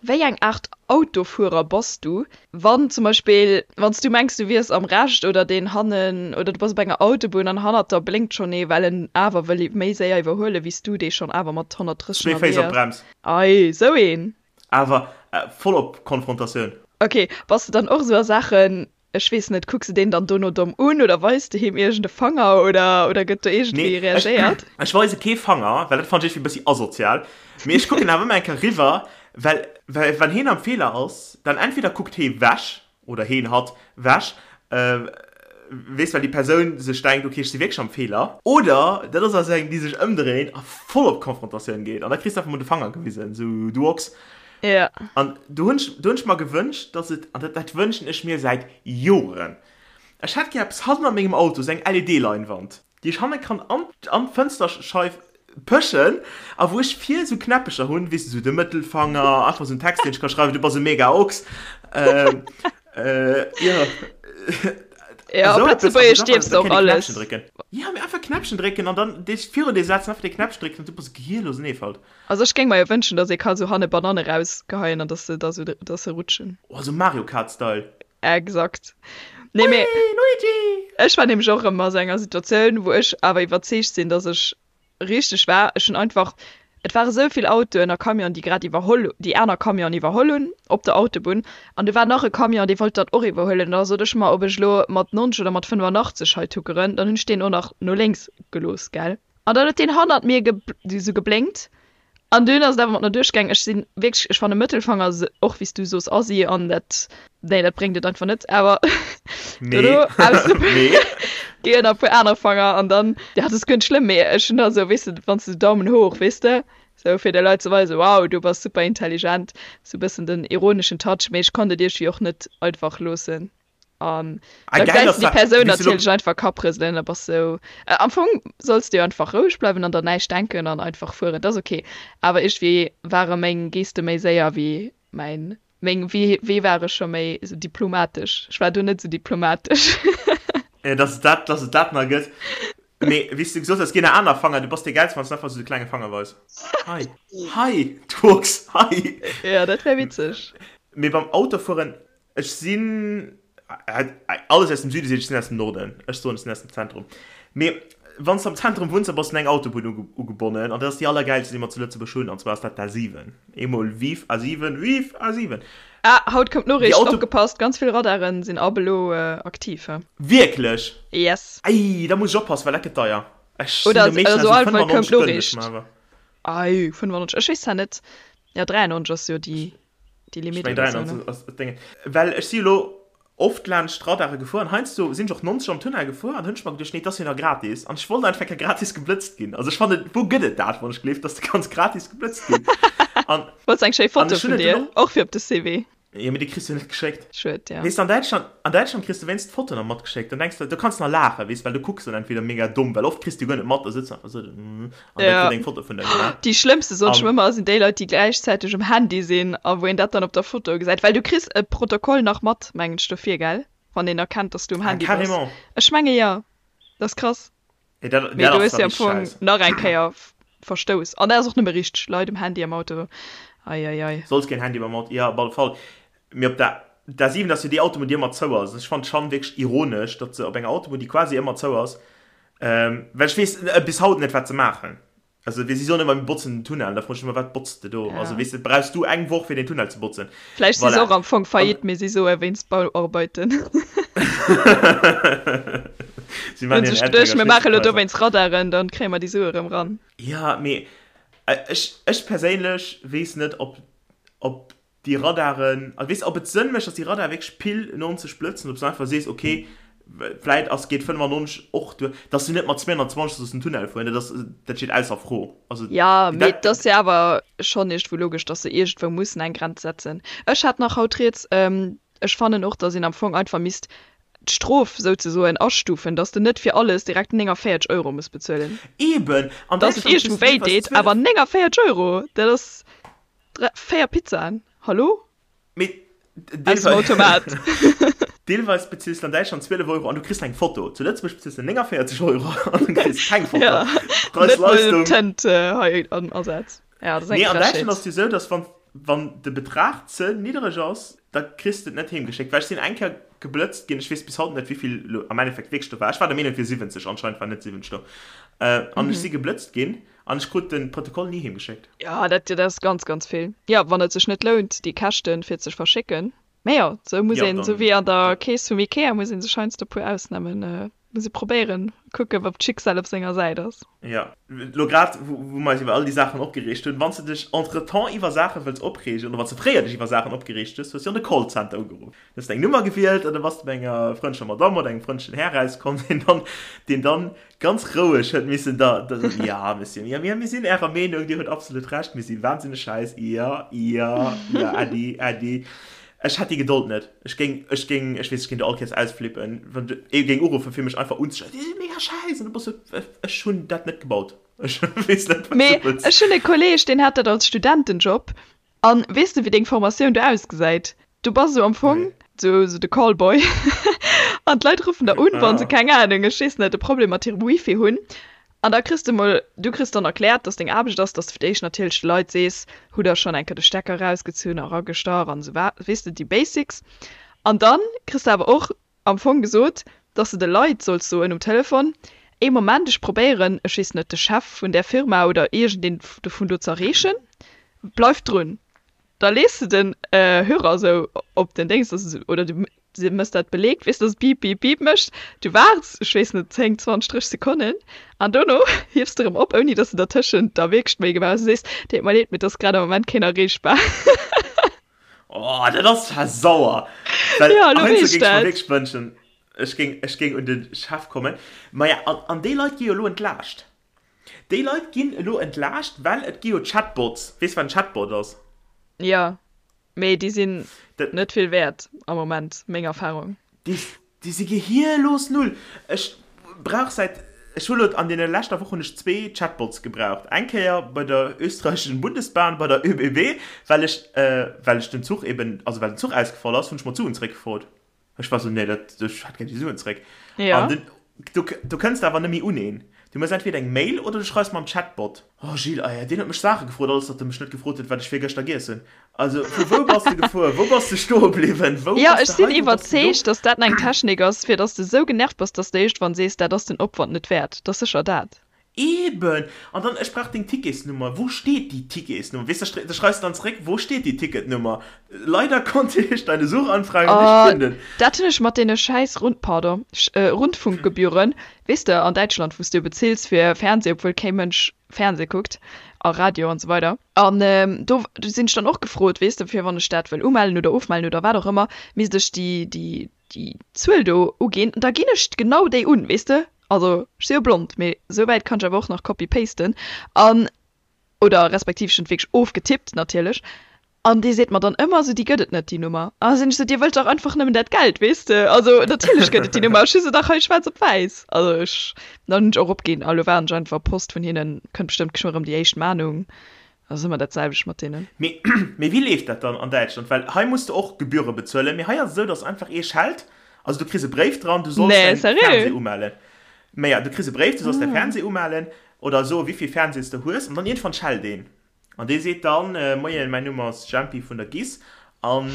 Wéi eng Aart Autofuerer bass du, wann zum Beispill, wann s du mengs, du wiers am Recht oder deen hannen, oder du bass op enger Autobunn an hannert der blénkt schonn ee, well en awer wëll méi séier iwwerhuelen, wéi s du, dee schonn awer mat 130 Zwee Féiss ënnerwee op ass? d'Brems. Ei, sou een! Awer voll op Konfrontatioun. Ok, bass de dann och esou a Saachen? Ech weess net, kucks de deen dann dono domm un oder weis de him iergend e Fanger oder, oder gëtt do iergendwéi Nee, ech, reagéiert? ech weise kee Fanger, well dat fannen ech iergendwéi e bëssi asozial. Mee ech kucken awer ëmmer eng Kéier riwwer, well, well wann heen am Feeler ass, dann entweder kuckt hee wech, oder heen, hatt, wech, weess, well déi Persoun sech denkt, okay, ech si wierklech am Feeler. Oder dat ass also eng, déi sech ëmdréint a voll op Konfrontatioun geet an da kriss de einfach mol de Fanger gewisen, sou, du Ochs. Ja. An do hunn ech, do hunn ech mer gewënscht, dass et, an dat, dat wënschen ech mir säit Joren, ech hätt gär eppes hannen a mengem Auto, esou eng LED-Leinwand, déi ech hanne kann an, an d'Fënsterscheif pëschen a wou ech vir esou Knäppecher hunn, weess de, esou de Mëttelfanger, einfach esou en Text, deen ech ka schreiwen, du bass e mega Ochs, ähm, äh, jo. Ja, op Esou eppes, also Lëtzebuergesch einfach, dierfs da de och kéint ee alles. Knäppchen drécken. Ja, mee einfach Knäppchen drécken an dann dee virun dir setzen, einfach dee Knäppchen drécken an du bass gehirlos en Eefalt. Also ech géing mer jo wënschen, dass ee ka sou hanne Bananne rausgeheien an dass se da sou, dass se rutschen. Oh, sou Mario Kart Style. Exakt. Nee, mee Hui, Luigi! ech war nämlech och erëm a sou enger Situatioun, wou ech awer iwwerzeegt sinn, dass ech richteg war. Ech hunn einfach, et ware sou vill Autoen a Camionen, déi grad iwwerholl, déi aner Camionen iwwerholl hunn op der Autobunn. An du war nach e Camion, dee wollt dat och iwwerhuelen. An da sot ech mer, ob ech elo mat 90 oder mat 85 hei tuckeren, dann hunn ech deen och nach no lénks gelooss, gell. An dann huet deen hannert mir sou geblénkt an dunn ass et awer mat mer duerchgaang. Ech sinn wierklech, ech fanne Mëttelfanger och wéi s du soos assi an dat, nee dat bréngt et einfach net, awer dono aus ginn nach e puer aner Fanger an dann, ja dat ass guer net schlëmm, mee ech hunn da sou, weess de, wann s de Daumen hoch, weess de, sou fir de Leit ze weisen, wow du bass super intelligent, sou e bëssen den ironeschen Touch, mee ech konnt et iergendwéi och net einfach loossen. An Ah, da geil, gesäis dass du déi da, Persoun wéi s du lo, natierlech einfach Kapprëselen, da bass sou. Äh, am Fong solls de jo einfach roueg bleiwen an der näischt denken an einfach fueren, dat ass ok. Awer iergendwéi ware meng Geste méi séier wéi mäin, meng, wéi, wéi war ech scho méi sou diplomatesch? Ech war do net sou diplomatesch. äh, dass et dat, dass et dat nach gëtt. Mee wéi s du gesot hues, ginn nach aner Fanger, du bass dee Gäilste, wann s du einfach sou de klenge Fanger weis. Hei, hei, du Ochs, hei! Jo, dat wär witzeg. Mee beim Autofueren, Ech sinn, alles aus dem Süde seet, ech sinn aus dem Norden. Ech soen, ech sinn aus dem Zentrum. Mee wann s de am Zentrum wunns, da bass de un eng Autobunn ugebonnen an dat ass déi allergäilste, déi mer zu Lëtzebuerg hunn, an zwar ass dat d'A7. Eemol Vive A7, vive A7! Ah, haut koum d'Noriicht, opgepasst, ganz vill Radaren sinn ab elo aktiv, he? Wierklech? Yes. Ei, da muss ech oppassen, well dat gëtt deier. Ech sinn Oder do meeschtens also esou auf alle Fall koum 95 gënnen ech d'Noriicht. mer awer. Ei, 95, ech weess zwar net, jo 93 ass jo déi. déi Limit oder so, ne? Ass Ding. Well ech si elo oft laanscht Radare gefuer an heiansdo sinn ech och 90 am Tunnel gefuer an hunn ech mer geduecht, nee, et ass jo nach gratis an ech wollt einfach ke gratis geblëtzt ginn. Also ech fannen, wou gëtt et dat, wann ech gleeft, dass de kanns gratis geblëtzt ginn? An Wollts eng schéi Foto vun dir, och fir op de CV. Jo, mee déi kriss du jo net geschéckt. Schued, ja. Weess de, an Däitschland, an Däitschland kriss du wéinst d'Foto nach matgeschéckt. Dann denks de, do kanns de nach laachen, weess, well du kucks dann entweder mega domm, well oft kriss du guer net mat, da sëtz du einfach esou an da Ja. kritt eng Foto vun der gemaach. Déi schlëmmste soen ech An. ëmmer, sinn déi Leit, déi gläichzäiteg um Handy sinn a wou een dat dann op der Foto gesäit. Well du kriss e Protokoll nach mat, mengen ech, dofir, gell? Wann een erkennt, dass du um Ah, Handy bass. carrément. Ech menge jo. Dat ass krass. Nee, dat, Mee dat do ass hues da de am richteg Fong scheiss. nach eng Kéier Verstouss. An dat ass och nëmme richteg, Leit um Handy am Auto, ei ei ei. Solls keen Handy beim Auto, jo op alle Fall. Mee op der A7 ass jo déi Autobunn déi ëmmer zou ass. Ech fannen schonn wierklech ironesch, datt se op enger Autobunn déi quasi ëmmer zou ass, well ech weess bis haut net wat se maachen. Also si soen ëmmer mir botzen den Tunnel, da froen ech ëmmer wat botz de do? Ja. Also weess de, brauchs du eng Woch fir den Tunnel ze botzen? Vläicht si se Voilà. och am Fong An faillite, mee si soe wéinst Bauarbeiten. Si Hunn maachen hiren sech geduecht, Erdrécker mir maache lo Schnitzelkaiser. dowéinst Radaren, dann kréie mer déi Sue erëm ran. Ja, mee ech, ech perséinlech weess net, ob, ob déi Radaren, also weess de, ob et Sënn mécht, dass déi Radare wierklech pile 90 blëtzen, ob s du einfach sees, okay, vläit ass, geet 95 och duer, dass du net mat 220 sollst den Tunnel fueren, dat ass, dat steet ausser Fro. Also Ja, mee dat, et ass jo awer schonn iergendwou logesch, dass se iergendwou mussen eng Grenz setzen. Ech hat nach haut rieds, ech fannen och, dass een am Fong einfach misst d'Strof souzesoen astufen, dass de net fir alles direkt 49 Euro muss bezuelen. Eben, an Dass et Däitschland kriss iergendwou du wéi deelweis deet, 12. awer 49 Euro, dat ass 3, 4 Pizzaen, hallo? Mee Aus dem Automat. Deelweis bezills de an Däitschland 12 Euro an du kriss eng Foto. Zu Lëtzebuerg bezills de 49 Euro an du kriss keng Foto. Ja, net mol Tënt hei am Asaz. Ja, dat ass eng Nee, an Frechheet. Däitschland ass et jo esou, dass wann, wann de Betrag ze niddereg ass, da kriss de et net heemgeschéckt. Well ech sinn eng Kéier geblëtzt ginn, ech weess bis haut net, wéivill elo am Endeffekt wierklech do war. Ech war der Meenung, et wier 70, anscheinend war net 70 do. An ech si geblëtzt ginn an ech krut de Protokoll ni heemgeschéckt. Ja, dat, dat ass ganz, ganz vill. Ja, wann et sech net lount, déi Käschten, fir et ze verschécken. Mä jo, sou muss een, sou wéi an der Kees vum Ikea, muss ee sech heiansdo e puer Ausnamen, muss ee probéieren, kucken, ob d'Schicksal op senger Säit ass. Jo, lo grad, wou mer eis iwwer all déi Saachen opgereegt hunn, wann s de dech entretemps iwwer Saache wëlls opreegen, oder wann s de fréier dech iwwer Saachen opgereegt hues, hues du an de Callcenter ugeruff. Du hues eng Nummer gewielt an da bass de bei enger frëndlecher Madamm oder engem frëndlechen Här rauskomm, deen dann, deen dann ganz roueg huet missen da, da soen, ja, Monsieur, ja, mir, mir sinn Ärer Meenung, Dir hutt absolut Recht, mir si wahnsinneg schäiss, jo, jo, jo, äddi, äddi. Ech hätt déi Gedold net. Ech géing, ech géing, ech weess, ech géing do all Kéiers ausflippen, wann ee géing uruffen, fir mech einfach unzeschreien, Dir sidd mega schäiss! An du bass sou, ech hunn dat net gebaut, ech weess net, wat du Mee wëlls. ech hunn e Kolleeg, deen hat dat als Studentenjob An weess de wéi deng Formatioun do ausgesäit? Du bass esou am Fong sou sou de Callboy an d'Leit ruffen der un wann se keng Ahnung, ech weess net, e Problem mat hirem Wifi hunn an da kriss de mol, du kriss dann erkläert dass deng Aarbecht ass, dass de fir d'éischt natierlech de Leit sees, hutt der schonn eng Kéier de Stecker erausgezunn a ragestach an esou wa, weess de, déi Basics. An dann kriss de awer och am Fong gesot, dass de de Leit solls soen um Telefon, Ee Moment, ech probéieren, ech weess net, de Chef vun där Firma oder iergendeen dovun do ze erreechen, bleift drun. Da lees de den Hörer esou op den Déngs, dass e, oder du mëss dat beleegt, weess, dass et Bip, Bip, Bip mécht. Du waarts, ech weess net, 10, 20, 30 Sekonnen an dono hiefs de erëm op, ouni dass de dertëschent da wierklech d'Méi gemaach hues a sees, Deet mer leed, mee et ass grad am Moment keen erreechbar. Oh, dat ass zwar sauer. Well Ja, elo heiansdo weess géing ech mer dat. wierklech wënschen, ech géing, ech géing un de Chef kommen. Maja, an, an déi Leit gi jo elo entlaascht. Déi Leit ginn elo entlaascht, well et gi jo Chatbots. Weess wat en Chatbot ass? Jo, mee déi sinn Dat, net vill wäert am Moment, meng Erfahrung. déi, Déi si gehierlos null. Ech brauch säit, ech hu lo an deene leschter Woch hunn ech zwee Chatbots gebraucht. Eng Kéier bei der österreichischen Bundesbahn, bei der ÖBB, well ech, well ech den Zuch eben, also well den Zuch ausgefall ass, hunn ech mer d'Suen zréckgefrot. Ech war sou, nee, dat, ech hätt gär déi Suen zréck. Ja. An den, do, do kënns de awer net méi un een. Du méchs entweder eng Mail oder du schreifs mam Chatbot. Oh Gilles, ah ja, deen huet mech Saache gefrot, alles datt e mech net gefrot huet, wat ech virgëschter giess hunn. Also, vu wou bass de gefuer? Wou bass de stoe bliwwen? Wou Jo, bass ech de sinn hei? Wou bass de do? iwwerzeegt, datt dat eng Technik ass, fir datt s de esou genervt bass, datt s de iergendwann sees, dat ass den Opwand net wäert. Dat ass sécher dat. Eben! An dann, ech brauch deng Ticketsnummer. Wou steet déi Ticketsnummer? Weess de, da schreifs de dann zeréck, Wo steht die Ticketnummer? Leider konnte ich deine Suchanfrage nicht Oh, finden. dat hunn ech mat deene schäiss Rund, pardon, Rundfunkgebühren, weess de, an Däitschland, wou s de jo bezills fir Fernseh, obwuel kee Mënsch Fernseh kuckt a Radio an esou weider. An do sinn ech dann och gefrot, weess de, fir wann ech dat wëll umellen oder ofmellen oder wat och ëmmer, misst ech déi, déi, déi Zuel do uginn. An da ginn ech genau déi un, weess de. Also ech si jo blond, mee esou wäit kann ech awer och nach copy-pasten an, oder respektiv ech hunn et wierklech ofgetippt natierlech. An dee seet mer dann ëmmer esou, déi gëtt et net, déi Nummer. An da sinn ech esou, Dir wëllt dach einfach nëmmen dat Geld, weess de? Also natierlech gëtt et déi Nummer, ech hu se dach hei schwaarz op wäiss. Also ech, dann hunn ech och opginn a lo waarden ech einfach op Post vun hinnen, kënnt bestëmmt geschwë erëm déi éischt Mahnung, ass ëmmer dat selwecht mat deenen. Mee, mee wéi leeft dat dann an Däitschland? Well hei muss de och Gebühre bezuelen, mee hei ass et esou, dass einfach ee schellt, also du kriss e Bréif dran, du solls Nee, däin sérieux? Fernseh umellen. Mä ja, du kriss e Bréif, du solls däi Fernseh umellen oder soe wéivill Fernsehs de hues an dann iergendwann schellt een. An dee seet dann, Moien, mäin Numm ass Jempi vun der GIS an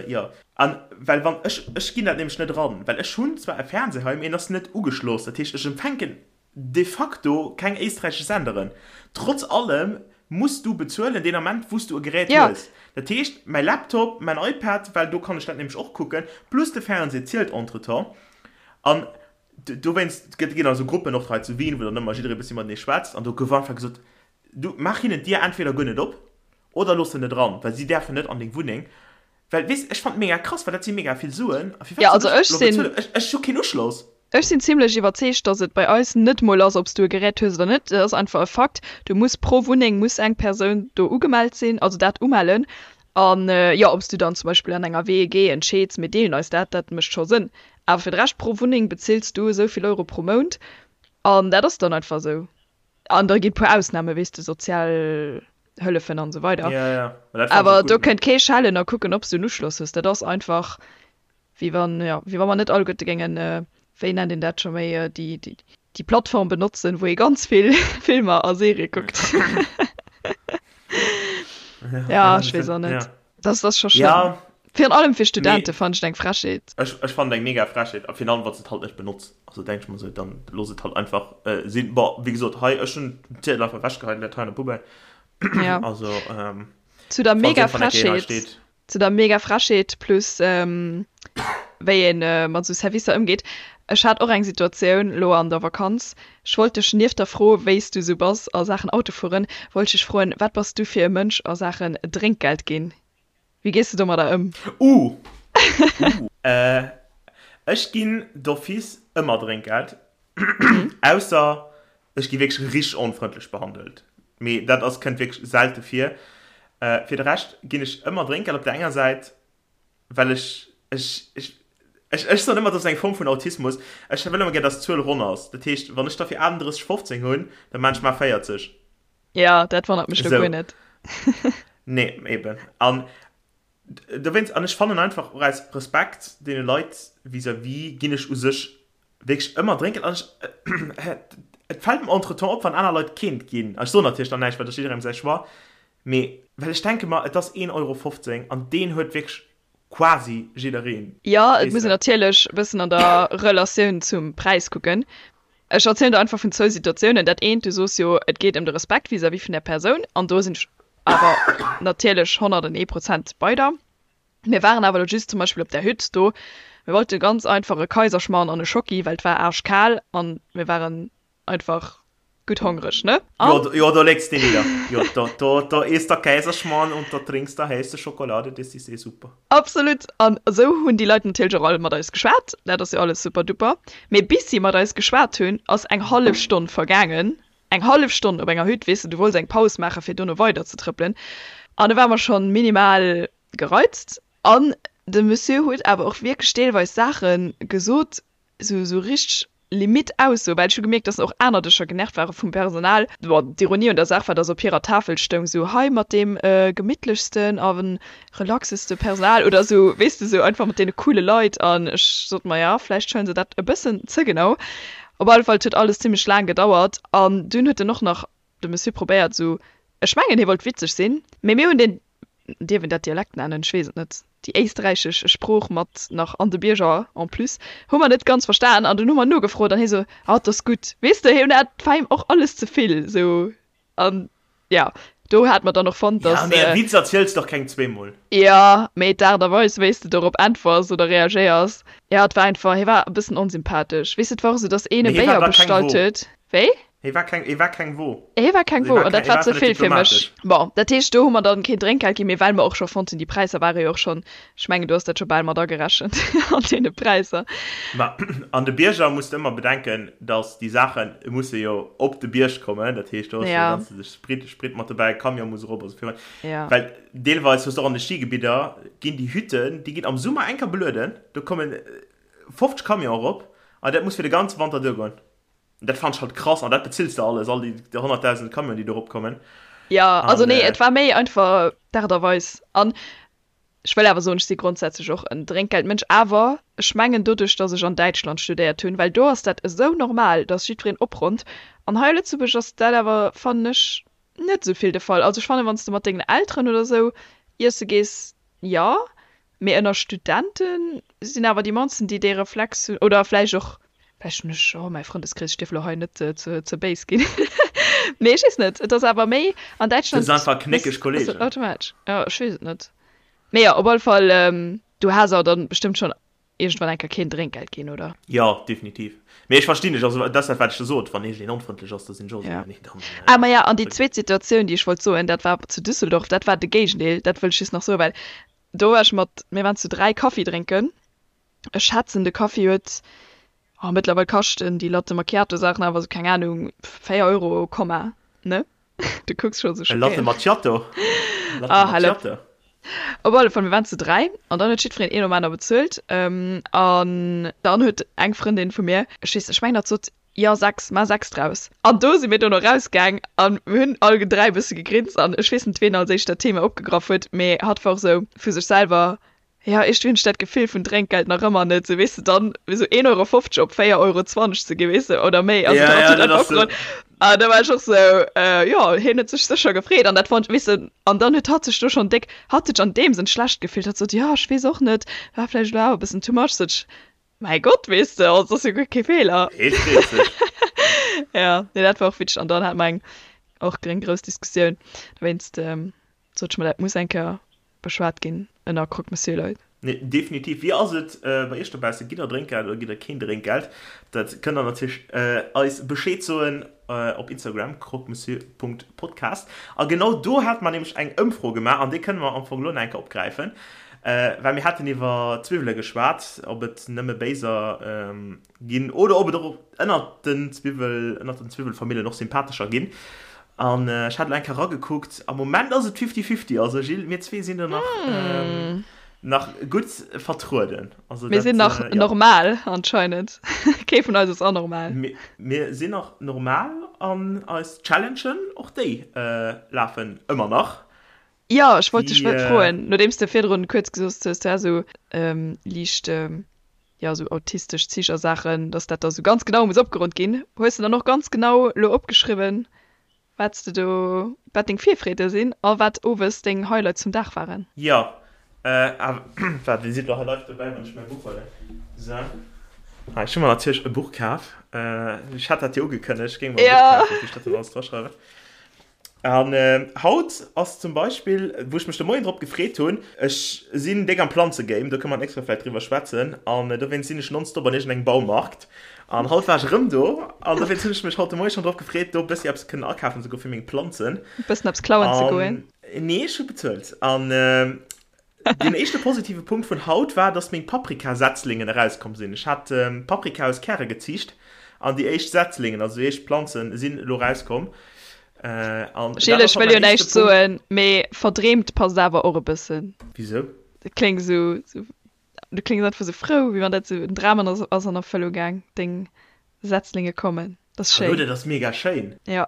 jo. An well wann ech, ech ginn dat nämlech net eran, well ech hunn zwar e Fernseh hei, mee en ass net ugeschloss, dat heescht ech empfänken de facto keng éisträichesch Senderen. Trotz allem muss du bezuelen deen Ament wou s du e Gerät Ja. hues. Dat heescht mäi Laptop, mäin iPad, well do kann ech dat nämlech och kucken, plus de Fernseh zielt entretemps. An dowéinst gëtt, ginn also Gruppen och hei zu Wien, wou dann ëmmer jidderee bëssi matenee schwätzt an do gouf einfach gesot, Du, maach hinnen d'Dier entweder guer net op oder looss se net eran, well si däerfen net an deng Wunneng. Well, weess, ech fannen et mega krass, well dat si mega vill Suen. A firwat Ja, soll also ech ech elo sinn. bezuelen? Ech, ech hu keen Uschloss. Ech sinn zimlech iwwerzeegt, dass et bei eis net mol ass, ob s du e Gerät hues oder net. Et ass einfach e Fakt, du muss pro Wunneng muss eng Persoun do ugemellt sinn, also dat umellen. An jo, ob s du dann zum Beispill an enger WEG entscheeds, mir deelen eis dat, dat mécht scho Sënn. Awer fir de Rescht, pro Wunneng bezills du esou vill Euro pro Mount an dat ass dann einfach esou. An da ginn et puer Ausnamen, weess de, sozial Hëllefen an esou weider. Ja, ja. Ma dat fannen ech Awer och do gutt, ne? kënnt kee schellen a kucken, ob s du en Uschloss hues. Dat ass einfach, wéi wann, jo, wéi wa mer net alleguerte géingen, wéi nennt een dat scho méi, déi, déi, déi Plattform benotzen, wou ee ganz vill Filmer a Serië kuckt. Ja, ech weess och net. Ja. Das ass scho schlëmm. Ja. Virun allem fir Studente Mee fannen ech et eng Frechheet. Ech, ech fannen et eng mega Frechheet. A virun allem, wann s de et halt net benotz. Also denk ech mer esou, dann looss et halt einfach sinn. Bon, wéi gesot, hei, ech hunn den Ziedel einfach ewechgeheit an dat hei an der Poubelle. Ja. Also, ähm, Zu der falls mega iergendwann eng Kéier een hei Frechheet steet. Zu der mega Frechheet plus wéi ee mat esou Servicer ëmgeet. Ech hat och eng Situatioun elo an der Vakanz. Ech wollt dech nieft der Fro, wéi s du esou bass a Saachen Autofueren, wollt ech dech froen, wat bass du fir e Mënsch a Saachen Drénkgeld ginn? Wéi gees de domadder ëm? Uh! Uh! Ech ginn d'office ëmmer Drénkgeld, ausser Ech gi wierklech richteg onfrëndlech behandelt, mee dat ass, kënnt wierklech selte vir. Fir de Rescht ginn ech ëmmer Drénkgeld op der enger Säit, well ech, ech, ech, ech, ech soen ëmmer, dat ass eng Form vun Autismus, ech wëll ëmmer gär, dass d'Zuel ronn ass. Dat heescht, wann ech der fir 38,15 hunn, da maan ech mar 40. Jo, dat wonnert mech lo guer net. Nee, eben. An dowéinst, an ech fannen einfach och aus Respekt deene Leit vis-à-vis, ginn ech u sech wierklech ëmmer drénken an ech et fält mer entretemps op wann aner Leit keent ginn an ech soen natierlech dann näischt well dat ass jidderengem säi Choix mee well ech denke mer et ass 1,15 Euro an deen huet wierklech quasi jiddereen. Jo et muss een natierlech e bëssen an der Relatioun zum Präis kucken. Ech erzielen der einfach vun zwou Situatiounen. Dat eent, du soos jo et geet ëm de Respekt vis-à-vis vun där Persoun an do sinn ech awer natierlech 101 Prozent bei der. Mir waren awer lo just zum Beispill op där Hütt do. Mir wollte ganz einfach e Kaiserschmarrn an e Schocki, well et war aarschkal an mir waren einfach gutt hongreg, ne? An. Jo, do legst de nidder. Jo, do, do, do isst der Kaiserschmarrn und da trinkst der heiße Schokolade, das ist eh super. Absolut! An esou hunn déi Leit natierlech och all mat eis geschwat. Dat ass jo alles super duper. Mee bis si mat eis geschwat hunn, ass eng hallef Stonn vergaangen. Eng hallef Stonn op enger Hütt, weess de, du wollts eng Paus maachen, fir dono weider ze trëppelen. An do ware mer schonn minimal gereizt an de Monsieur huet awer och wierklech deelweis Saache gesot, sou sou richteg limite Aussoen, well ech hu gemierkt, dass och aner Dëscher genervt ware vum Personal. Bon, d'Ironie un der Saach war, dass op hirer Tafel stoung sou, hei mat deem gemittlechsten a relaxeste Personal oder sou, weess de, sou einfach mat deene coole Leit an ech sot mer, ja, vläicht huelen se dat e bëssen ze genau. Op alle Fall, et huet alles zimmlech laang gedauert an dunn huet en och nach, de Monsieur, probéiert sou, ech mengen hie wollt witzeg sinn, mee mir hunn deen Dierf een dat Dialekt nennen? Ech weess et net. Déi éisträichesch Sprooch mat nach an de Bierger en plus hu mer net ganz verstan an dunn hu mer nogefrot an hie sou, Ah, 't ass gutt. Weess de, hien hat, 't war him och alles ze vill sou an ja, do hate mer dann och fonnt, dass. Ja, mee e Witz erziels de och keng zweemol. Jo, mee d'Aart a Weis, wéi s de dorop äntwers oder reagéiers, ja, et war einfach, hie war e bëssen onsympathesch. Weess de, et war och sou, dass een e Mee hie war Béier da keng bestallt Wo. huet. Wéi? Hie war keng, hie war keng Wo. Hie war keng Hie Wo, war an dat keng, hie war war ze einfach net vill fir mech. diplomatesch. Bon, dat heescht, do hu mer dann keen Drénkgeld ginn, mee well mer och scho fonnt hunn, déi Präisser ware jo och schonn, ech mengen, du has dat scho bal mat agerechent an deene Präisser. Ma an de Bierger muss de ëmmer bedenken, datt déi Saache musse jo op de Bierg kommen, dat heescht, do ass jo Ja. ganz de Sprit, Sprit mat dobäi, Camion muss erop a sou virun. Ja. Well deelweis hues de och an de Schigebidder ginn déi Hütten, déi ginn am Summer eng Kéier belueden, do kommen 50 Camionen erop an dat muss fir de ganze Wanter duergoen. Dat fand ech halt krass an dat bezills de alles, all déi 100.000 Camionen déi do erop kommen. Jo, also nee, et war méi einfach d'Aart a Weis. An ech wëll awer soen, ech si grondsätzlech och en Drénkgeldmënsch, awer ech mengen doduerch, datt ech an Däitschland studéiert hunn, well do ass dat esou normal, datt jiddwereen opronnt. An hei a Lëtzebuerg ass dat awer, fannen ech, net esou vill de Fall. Also ech fannen, wann s de mat dengen Elteren oder esou iesse gees, jo, Mee ënner Studente sinn awer déi mannsten, déi dee Reflex hunn, oder vläicht och, vläicht hunn ech, oh mäi Frëndeskrees, ech dierf elo hei net ze béis ginn, mee ech weess net, et ass awer méi an Däitschland. Du hues einfach knéckeg Kollegen. Automatesch, jo, ech weess et net. Mee jo, op alle Fall, du has awer dann bestëmmt schonn iergendwann eng Kéier keen Drénkgeld ginn, oder? Jo, definitiv. Mee ech verstinn dech, also dat ass dat wat ech der sot, wann iergendeen onfrëndlech ass, da sinn ech och esou, nee dann. Ah maja, an déi zweet Situatioun, déi ech wollt soen, dat war zu Düsseldorf, dat war de Géigendeel, dat wëll ech just nach soen, well do war ech mat, mir waren zu 3 Kaffi drénken, ech schätzen de Kaffi huet, oh mëttlerweil kaschten déi Latte Macchiato Saachen awer esou, keng Ahnung, 4 Euro Komma, ne? Du kucks scho sou E Latte schockéiert. Macchiato? Latte Ah, hal op. Macchiato. Op alle Fall, mir waren zu 3 an dann huet jiddwereen een nom aner bezuelt. An dann huet eng Frëndin vu mir, ech weess, ech mengen hatt sot, jo 6, maach 6 draus. An do si mir dono rausgaang an mir hunn all 3 e bësse gegrinst an ech weess net ween als éischt dat Thema opgegraff huet, mee hatt war och sou vu sech selwer, Jo, iergendwéi hunn ech dat Gefill vun Drénkgeld nach ëmmer net, sou weess de, dann sou 1,50 Euro op 4,20 Euro ze ginn, weess de, oder méi, also Ja, dat ja, huet dat einfach ass sou. opgeholl. An da war ech och sou, jo, hien huet sech sécher gefreet an dat fonnt, weess de, an dann huet hatt sech do schonn déck, hatt huet sech an deem Sënn schlecht gefillt, hatt sot, jo, ech weess och net, war vläicht elo awer e bëssen too much, sot ech, mäi Gott, weess de, also ass jo guer kee Feeler. Hee freet sech. Ja, nee, dat war och witzeg an dann hate mer eng och eng grouss Diskussioun dowéinst, sot ech mer, dat muss eng Kéier beschwat ginn. Ënner Croque-Monsieur-Leit. Nee, definitiv. Wéi ass et bei iech dobaussen? Gitt der Drénkgeld oder gitt der keen Drénkgeld? Dat kënnt der natierlech eis Bescheed soen op Instagram, croquemessieur.podcast. A genau do hate mer nämlech eng Ëmfro gemaach an déi kënne mer am Fong elo nach eng Kéier opgräifen, well mir haten iwwer Zwiwwele geschwat, ob et nëmme béiser ginn oder ob et och ënnert den Zwiwwel, ënnert den Zwiwwelfamillen och sympathescher ginn. An ech hat elo eng Kéier eragekuckt, am Moment ass et fifty-fifty, also Gilles, mir zwee sinn do nach, nach gutt vertrueden. Also Mir sinn nach ja. normal anscheinend. Kee vun eis ass anormal. Mir, mir sinn nach normal an eis Challengen, och déi lafen ëmmer nach. Jo, ech wollt dech froen, nodeems de virdrun kuerz gesot hues, du häss esou liicht, jo, esou autistesch Zich a Saachen, dass dat da esou ganz genau muss opgeronnt ginn. Hues de dann och ganz genau elo opgeschriwwen, wat s de do, wat deng Virfreede sinn a wat owes deng Highlights vum Dag waren? Jo, waart, Dir sidd elo hei live dobäi, wann ech mäi Buch huelen. Sou, hei, ech hu mer natierlech e Buch kaf. Ech hat dat jo ugekënnegt, ech géing mer e Buch kafen, wou ech dat dann alles draschreiwen. An haut ass zum Beispill, wou ech mech de Moien drop gefreet hunn, ech sinn déck am Planzegame, do kënne mer d'nächst Woch vläicht driwwer schwätzen, an dowéinst sinn ech nonstop an iergendengem Baumarkt. An haut war ech erëm do, an dowéinst hunn ech mech haut de Moie schonn drop gefreet, do e bëssi eppes kënnen akafen ze goen fir meng Planzen. E bëssen eppes klauen ze goen? Nee, ech hu bezuelt. An Deen éischte positive Punkt vun haut war, dass meng Paprika-Setzlingen erauskomm sinn. Ech hat Paprika aus Käre geziicht an déi éischt Setzlingen, also déi éischt Planzen, sinn elo erauskomm. An dat Gilles, ass ech haut wëll jo mäin éischte näischt Punkt. soen, mee verdreemt passt awer och e bëssen. Wisou? Dat kléngt esou, esou, du kléngs einfach esou frou, wéi wann dat esou en Dram an ass an Erfëllung gaang, deng Setzlinge kommen. Dat ass Hallo, schéin. dat ass mega schéin. Jo.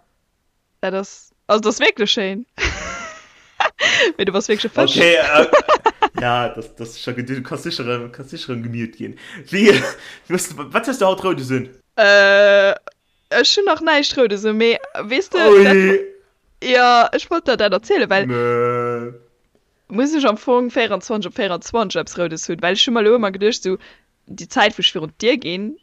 Dat ass, also dat ass wierklech schéin. Mee du bass wierklech e Fësch. Okay, äh, ja, das, das ist schon gut. Du kannst sicher, ähm, kannst sicher erëm gemute ginn. Wéi, wéi, wat hues du haut Roudes un? Äh, ech hunn nach näischt Roudes un, mee weess de, dat, Ui. jo, ech wollt der dat erzielen, well Mö. muss ech am Fong 24 op 24 eppes Roudes hunn? Well ech hu mer elo ëmmer geduecht, sou déi Zäit, wou ech virun d'Dier ginn,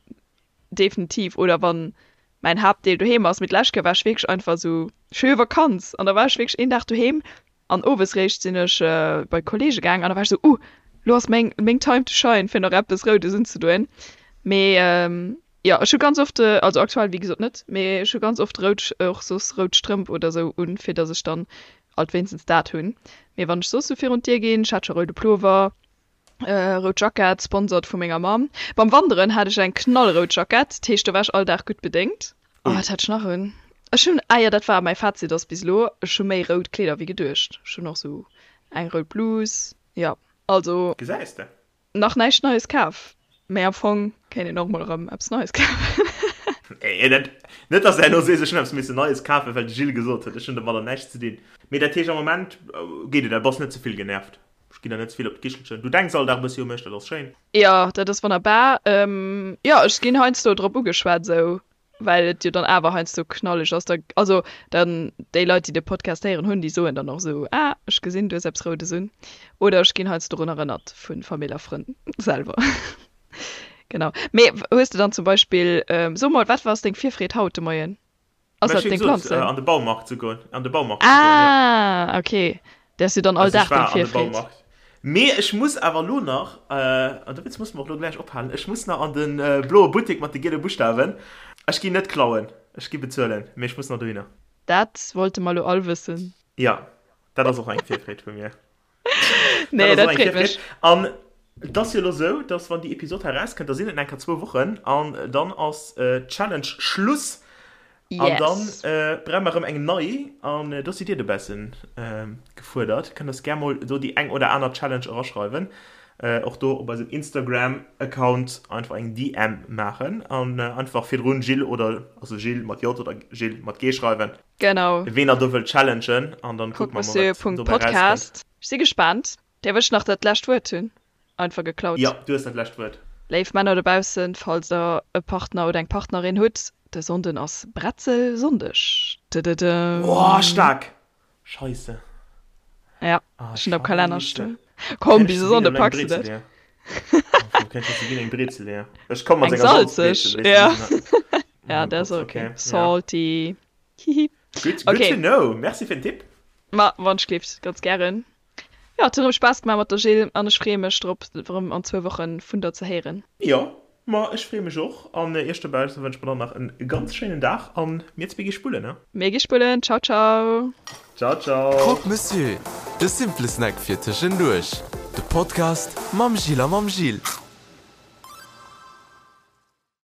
Definitiv. Oder wann mäin Haaptdeel doheem ass. Mee d'lescht Kéier war ech wierklech einfach esou, ech hu jo Vakanz an da war ech wierklech een Dag doheem an owes réischt sinn ech bei Kollege gaang an da war ech esou, uh, lo ass meng meng Time to shine fir nach eppes Roudes unzedoen. Mee jo, ech hu ganz oft, also aktuell wéi gesot net, mee ech hu ganz oft rout, och soss rout Strëmp oder esou un, fir datt ech dann alt wéinstens dat hunn. Mee wann ech soss esou virun d'Dier ginn, ech hat scho roude Plover, Rout Jackett, sponsored vu menger Mamm. Beim Wanderen hat ech eng knallrout Jackett, dat heescht do war ech all Dag gutt bedéngt. Oh, wat hat ech nach un? Ech hunn, ah jo, dat war mäi Fazit ass bis elo, ech hu méi rout Kleeder wéi geduecht. Ech hunn och sou eng rout Blus, jo. Also. Gesäis de. Nach näischt Neies kaf, mä am Fong kéint een och mol erëm eppes Neies kafen. Nee, dat, net dass de herno sees, ech hunn eppes missen Neies kafen, well de Gilles gesot huet, ech hunn domadder näischt ze dinn. Mee dat heescht am Moment geet et, du bass net ze vill genervt? Ech ginn der net ze vill op d'Kichelchen. Du denks all Dag e bëssi u mech, dat ass schéin. Jo, dat ass wonnerbar. Jo, ech ginn heiansdo drop ugeschwat esou, well et jo dann awer heiansdo knalleg ass. Da, also dann déi Leit, déi de Podcast héieren hunn, déi soen dann och esou, Ah, ech gesinn, du hues eppes Roudes un. Oder ech ginn heiansdo drun erënnert vu Famill a Frënn selwer. Genau. Mee hues de dann zum Beispill, so mol, wat ass deng Virfreed haut de Moien? Ass dat deng Planzen? An de Baumarkt ze goen. An de Baumarkt ze goen, ja. Ah, okay. Dat ass jo dann all Dag deng Virfreed. Mee ech muss awer elo nach, an dowéinst musse mer och elo gläich ophalen, ech muss nach an de bloe Buttek mat de giele Buschtawen. Ech ginn net klauen, ech gi bezuelen, mee ech muss nach dohinner. Dat wollte mer elo all wëssen. Jo, dat ass och eng Virfreed vu mir. Nee, dat freet mech. An et ass jo elo sou, dass wann déi Episod hei erauskënnt, da sinn et nach eng Kéier zwou Wochen an dann ass d'Challenge Schluss. An dann brauche mer erëm eng nei an do sidd Dir dobaussen gefuerdert. Kënnt eis gär mol do déi eng oder aner Challenge eraschreiwen. Och do op eisem Instagram-Account einfach eng DM maachen an einfach virdrun Gilles oder also Gilles mat J oder Gilles mat G schreiwen. Genau. Ween der do wëllt challengen an dann kucke mer mol wat dobäi rauskënnt. Ech si gespaant. Däerf ech nach dat lescht Wuert hunn? Einfach geklaut. Jo, du hues dat lescht Wuert. Léif Männer dobaussen, falls der e Partner oder eng Partnerin hutt, de Sonnden ass Bretzelsonndeg. Dëdëdëm. Oh, staark! Scheisse. Ja, ech hunn am Kalenner stoen. Komm, bis e Sonnde packs de dat. Ech komm mat senger Salzbrezel. Ja, ja, dat ass ok. Salty. Hihi. Good, good to know. Merci fir den Tipp. Ma wann ech gleeft, ganz gären. Jo, et huet erëm Spaass gemaach mat der Jill an ech freeë mech drop, erëm an zwou Woche vun der ze héieren. Jo, ma ech freeë mech och an iech dobausse wënsche mer dann nach en ganz schéinen Dag an mir zwee gi spullen, ne? Mir gi spullen. Ciao, ciao. Ciao, ciao. Croque Monsieur, de simple Snack fir tëschenduerch. De Podcast mam Jill a mam Gilles.